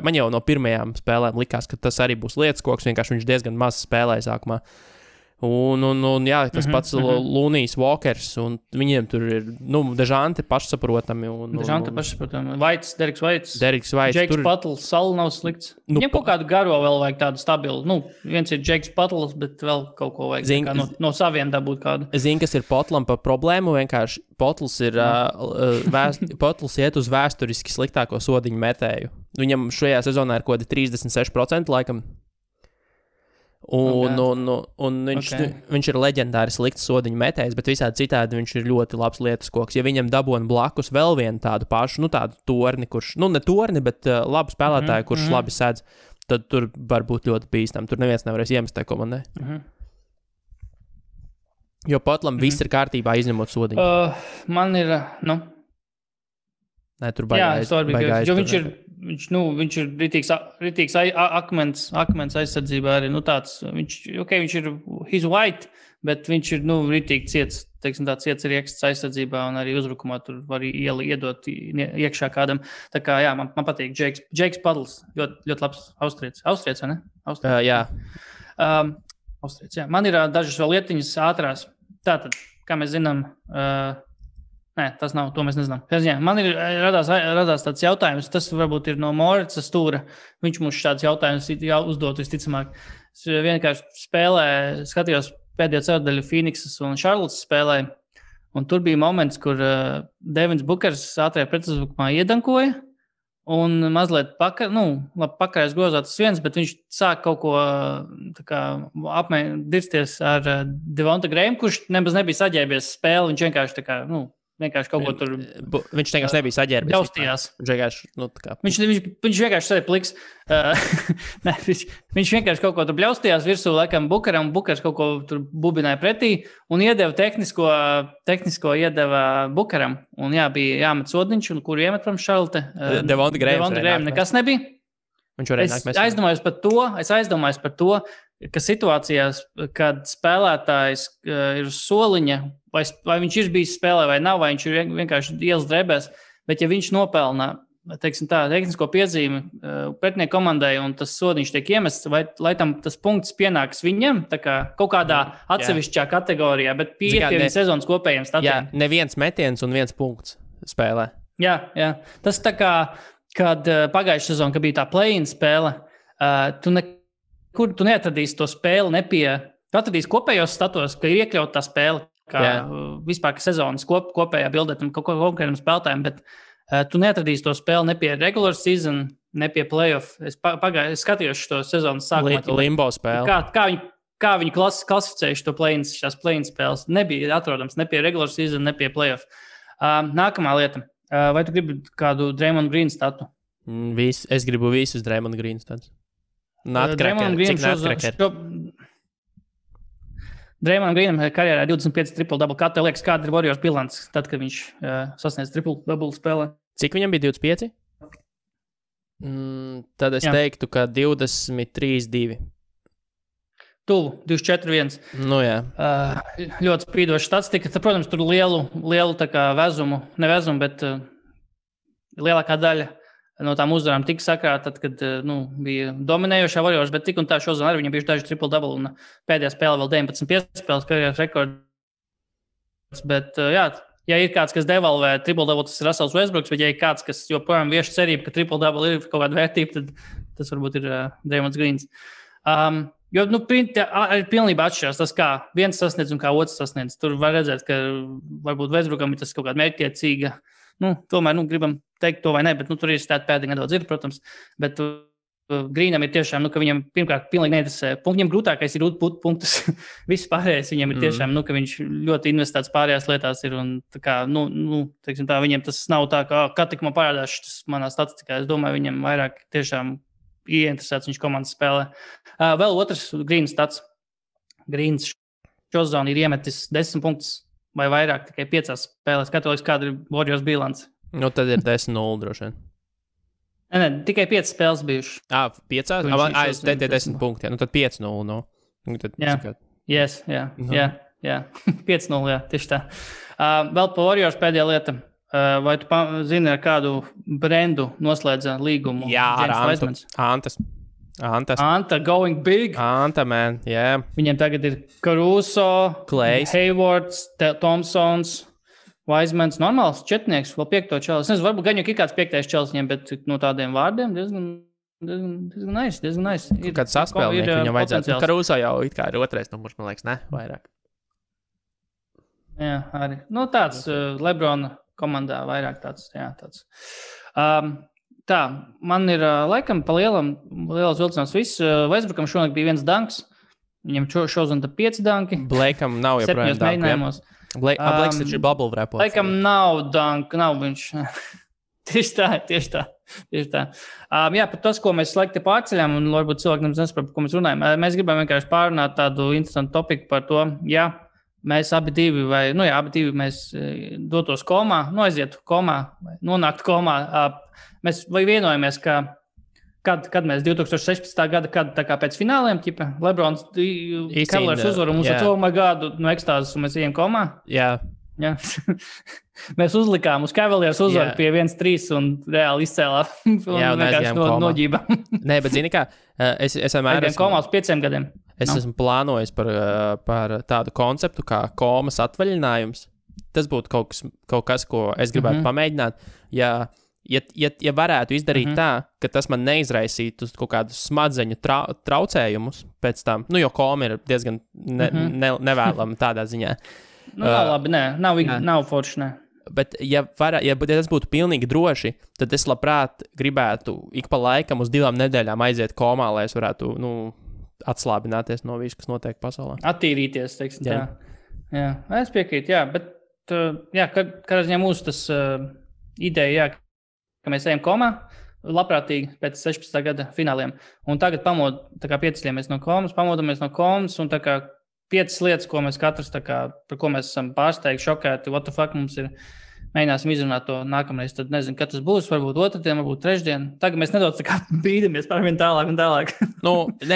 man jau no pirmajām spēlēm likās, ka tas arī būs lietas-koks, vienkārši viņš diezgan maz spēlēja sākumā. Un jā, tas pats Lunijs Walkers, un viņiem tur ir, Dežante pašsaprotami. Dežante pašsaprotami. Deriks Vaits. Džeiks Patls, Sal nav slikts. Viņam kaut kādu garo vēl vajag tādu stabilu. Viens ir Džeiks Patls, bet vēl kaut ko vajag no saviem dabūt kādu. Zini, kas ir Potlam par problēmu, vienkārši Potls ir, Potls iet uz vēsturiski sliktāko sodiņu metēju. Viņam šajā sezonā ir kaut kādi 36% laikam. Un viņš ir leģendāri slikts sodiņu metējs, bet visādi citādi viņš ir ļoti labs lietas-koks. Ja viņam dabūna blakus vēl vienu tādu pašu, tādu torni, kurš, ne torni, bet labu spēlētāju, kurš labi sēdz, tad tur var būt ļoti bīstam. Tur neviens nevarēs iemest tai komandai. Jo Potlam viss ir kārtībā, izņemot sodiņu. Man ir, Nē, tur baigā jo viņš ir ritīgs akmens aizsardzībā arī, tāds, viņš ir his white, bet viņš ir, ritīgi ciets, tāds ciets rieksts aizsardzībā un arī uzbrukumā tur var iedot iekšā kādam. Tā kā, jā, man patīk Džeiks Padls, ļoti labs austrietis, vai ne? Jā. Austrietis, jā. Man ir dažas vēl lietiņas ātrās. Tātad, kā mēs zinām, nē, tas nav, to mēs nezinām. Man ir radās tāds jautājums, tas varbūt ir no Moritsa stūra. Viņš mums šāds jautājums uzdot visticamāk. Es vienkārši skatījos pēdējo ceturdaļu Phoenixas un Charlottes spēlē, un tur bija moments, kur Devins Bookers ātrajā pretuzbrukumā iedankoja, un mazliet pakarēs grozā tas viens, bet viņš sāk kaut ko dirsties ar Devonta Grahamu, kurš nemaz nebija saģērbies spēli, viņš vienkārši vienkārši kaut ko tur... Viņš vienkārši nebija saģērbies. Ļaustījās. Viņš vienkārši sēdi pliks. Viņš vienkārši kaut ko tur bļaustījās virsū, laikam, Bukaram. Bukars kaut ko tur bubināja pretī un iedeva tehnisko iedeva Bukaram. Un bija jāmet sodiņš, un kuru iemet prom Šarlote. Devonta Graham nekas nebija. Es aizdomājos par to, ka situācijās, kad spēlētājs ir uz soliņa, vai viņš ir bijis spēlē vai nav, vai viņš ir vienkārši ielas drēbēs, bet ja viņš nopelna, tehnisko piezīmi pretinieku komandai un tas sodiņš tiek iemests, lai tam tas punkts pienāks viņam, tā kā kaut kādā atsevišķā kategorijā, bet pie sezonas kopējiem statiem. Jā, neviens metiens un viens punkts spēlē. Jā. Tas tā kā, kad pagājušā sezona, kad bija tā play-in spēle, tu neatradīsi to spēli tu atradīsi kopējos statos, ka ir iekļauta tā spēle, kā vispār ka sezonas kopējā bildē tam konkrētam spēlētājiem, bet tu neatradīsi to spēli ne pie regular season, ne pie playoff. Es skatījos šo sezonas sākumā. Limbo spēli. Kā viņi klasificējuši to play-in spēles. Nebija atrodams ne pie regular season, ne pie playoff. Nākamā lieta. Vai tu gribi kādu Draymond Green statu? Es gribu visus Draymond Green status. Draymond Greenam karjerā 25 triple-double. Kā tev liekas, kāda ir Warriors bilants, tad, kad viņš sasniedz triple-double spēlē? Cik viņam bija 25? Tad es teiktu, ka 23-2. Tuvu, 24-1. Jā. Ļoti spīdoša statistika. Protams, tur lielu tā kā vezumu, bet lielākā daļa no tām uzvarām tika sakrāta, tad, kad bija dominējošā Warriors, bet tik un tā šodien arī viņam bija daži triple-double un pēdējā spēlē vēl 19 piespēles karjeras rekords. Bet, jā, ja ir kāds, kas devalvē triple-double, tas ir Russells Westbrooks, bet ja ir kāds, kas joprojām vieši cerība, ka triple-double ir kaut kāda vērtība, tad tas varbūt ir Draymonds Greens. Jo, ir pilnībā atšķirās tas, kā viens sasniedz un kā otrs sasniedz. Tur var redzēt, ka varbūt Westbrookam ir tas kaut kāda mērķtiecīga. Tomēr, gribam teikt to vai ne, bet tur ir stāt pēdīgi nedaudz ir, protams. Bet Greenam ir tiešām, ka viņam pirmkārt pilnīgi neinteresē. Viņam grūtākais ir būt punktus. Viss pārējais viņam ir tiešām, ka viņš ļoti investēts pārējās lietās ir. Un tā kā, teiksim tā, viņam tas nav tā, kā tik man parādās tas manā statistikā. Es domāju, viņam vairāk tiešām ieinteresēts viņš komandas spēlē. Vēl otrs Greens stats. Greens šozonu ir iemetis 10 punktus. Vai vairāk, tikai 5 spēlēs. Katoliks, kāda ir Warriors bilance? Tad ir 10-0 droši vien. Ne, tikai 5 spēles bijušas. 5? Es teicu 10 punkti. Tad 5-0. Jā. Yes, jā. 5-0, jā, tieši tā. Vēl pa Warriors pēdējā lieta. Vai tu zini, ar kādu brendu noslēdza līgumu? Jā, ar Anta going big. Anta, man, jā. Yeah. Viņiem tagad ir Caruso, Klejs, Haywards, Thompsons, Wisemans, normāls četnieks, vēl 5. čels. Es nezinu, varbūt gan jau ir kāds 5. čels viņiem, bet no tādiem vārdiem diezgan nice. Kāds saspēlnieki viņam vajadzētu. Caruso jau it kā ir 2. numurs, man liekas, ne? Vairāk. Jā, arī. Tāds Lebrona komandā vairāk tāds. Tā, man ir laikam pa lielas vilcinās viss. Westbrookam šonakt bija 1 danks. Viņam šodien 5 danki. Blakeam nav joprojām danku. Blakes taču ir bubble wrapos. Blakeam nav danku, nav viņš. Tieši tā. Jā, par tas, ko mēs laikti pārceļām, un varbūt cilvēki nesaprot, par ko mēs runājam. Mēs gribam vienkārši pārunāt tādu interesantu topiku par to, ja mēs abi divi mēs dotos komā, aizietu komā, nonāktu komā. Mēs vai vienojamies, ka kad mēs 2016. gada, kad tā kā pēc fināliem, Lebrons, Cavaliers uzvaru, mums ar my God, no ekstāzes, un mēs ejam komā? Jā. Mēs uzlikām uz Cavaliers uzvaru pie 1-3 un reāli izcēlām. Jā, un aizgājām komā. Noģībām. Nē, bet zini kā, es vienmēr esmu komā uz 5 gadiem. Es esmu plānojis par tādu konceptu kā komas atvaļinājums. Tas būtu kaut kas, ko es gribētu pamēģināt. Ja varētu izdarīt tā, ka tas man neizraisītu kaut kādus smadzeņu traucējumus pēc tam, jo koma ir diezgan nevēlama tādā ziņā. Nav labi, nav forši, ne. Bet ja tas būtu pilnīgi droši, tad es labprāt gribētu ik pa laikam uz 2 nedēļām aiziet komā, lai es varētu, atslābināties no visu, kas notiek pasaulē. Attīrīties, teiksim tā. Jā, es piekrītu, jā, bet, kad mūsu tas ideja, ka mēs ejam komā, labprātīgi pēc 16. gada fināliem. Un tagad piecļamies no komas, pamodamies no komas, un 5 lietas, ko mēs katrs, par ko mēs esam pārsteigti, šokēti, what the fuck mums ir, mēģināsim izrunāt to nākamreiz. Tad nezinu, kad tas būs, varbūt otrdien, varbūt trešdien. Tagad mēs nedaudz bīdamies par vien tālāk un tālāk.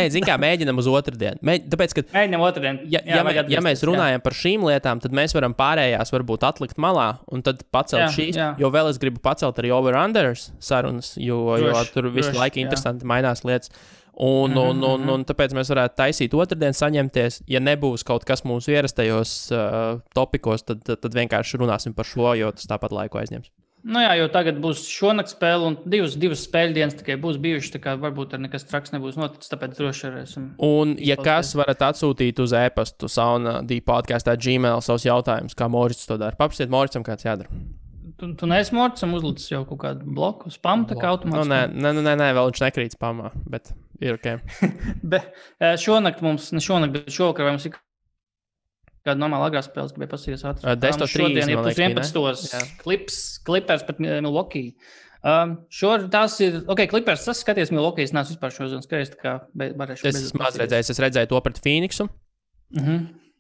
Zin kā, mēģinam uz otrdien. Tāpēc, ka mēģinam otrdien. Ja mēs runājam par šīm lietām, tad mēs varam pārējās varbūt atlikt malā un tad pacelt šīs, jo vēl es gribu pacelt arī over-unders sarunas, jo tur visu laiku interesanti mainās lietas. Un tāpēc mēs varētu taisīt otrdien, saņemties. Ja nebūs kaut kas mūsu ierastajos topikos, tad vienkārši runāsim par šo, jo tas tāpat laiku aizņems. Jo tagad būs šonakt spēle un divas spēļu dienas tikai būs bijušas, tā kā varbūt ar nekas traks nebūs noticis, tāpēc droši varēsim. Un, ja kas varat atsūtīt uz e-pastu sauna.dpodcast@gmail savus jautājumus, kā Morits to dara. Paprasiet Moricam, kāds jādara. Tu neesi Moricam uzlicis jau kaut kādu bloku, spam, tā kā automātiski? Nē, vēl viņš nekrīt spamā, bet ir ok. Bet šonakt, bet šovakar mums ir kāda normāla agrā spēles, gribēju pasīties ātri. 10:30, man liekas, 11. Clippers pret Milwaukee. Tās ir, Clippers, tas skaties Milwaukee, es neesmu vispār šodien skaties, tā kā varēšu. Es maz redzēju to pret Phoenixu.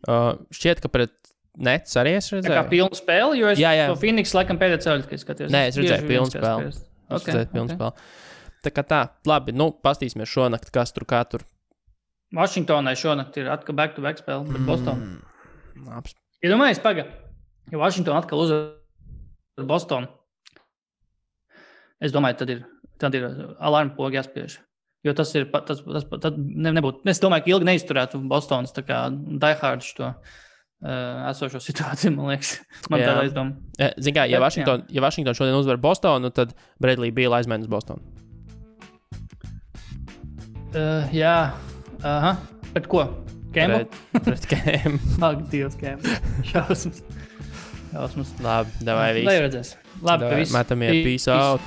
Šķiet, ka pret Nets arī es redzēju. Tā kā pilnu spēli, jo es to Phoenix laikam pēdējā ceļu tikai skatījos. Nē, es redzēju pilnu spēli. Tā kā tā, labi, pastīsimies šonakt, kas tur kā tur. Vašingtonai šonakt ir atkal back-to-back spēle pret Bostonu. Iedomājies, ja Vašingtona atkal uzvar Bostonu. Es domāju, tad ir tad ir alarma poga jāspiež. Jo tas ir, tad nebūtu, es domāju, ka ilgi neizturētu Bostonas tā kā diehardus to esošo situāciju, man liekas. Man tāda aizdoma. Zin kā, ja Washington šodien uzvar Bostonu, tad Bradley Beal aizmaina uz Bostonu. Jā. Aha. Pret ko? Kembu? Pret Kembu. Ak, Dievs, Kembu. Šausmas. Labi, davai viss. Lai redzēs. Labi, ka viss. Metamies, peace out.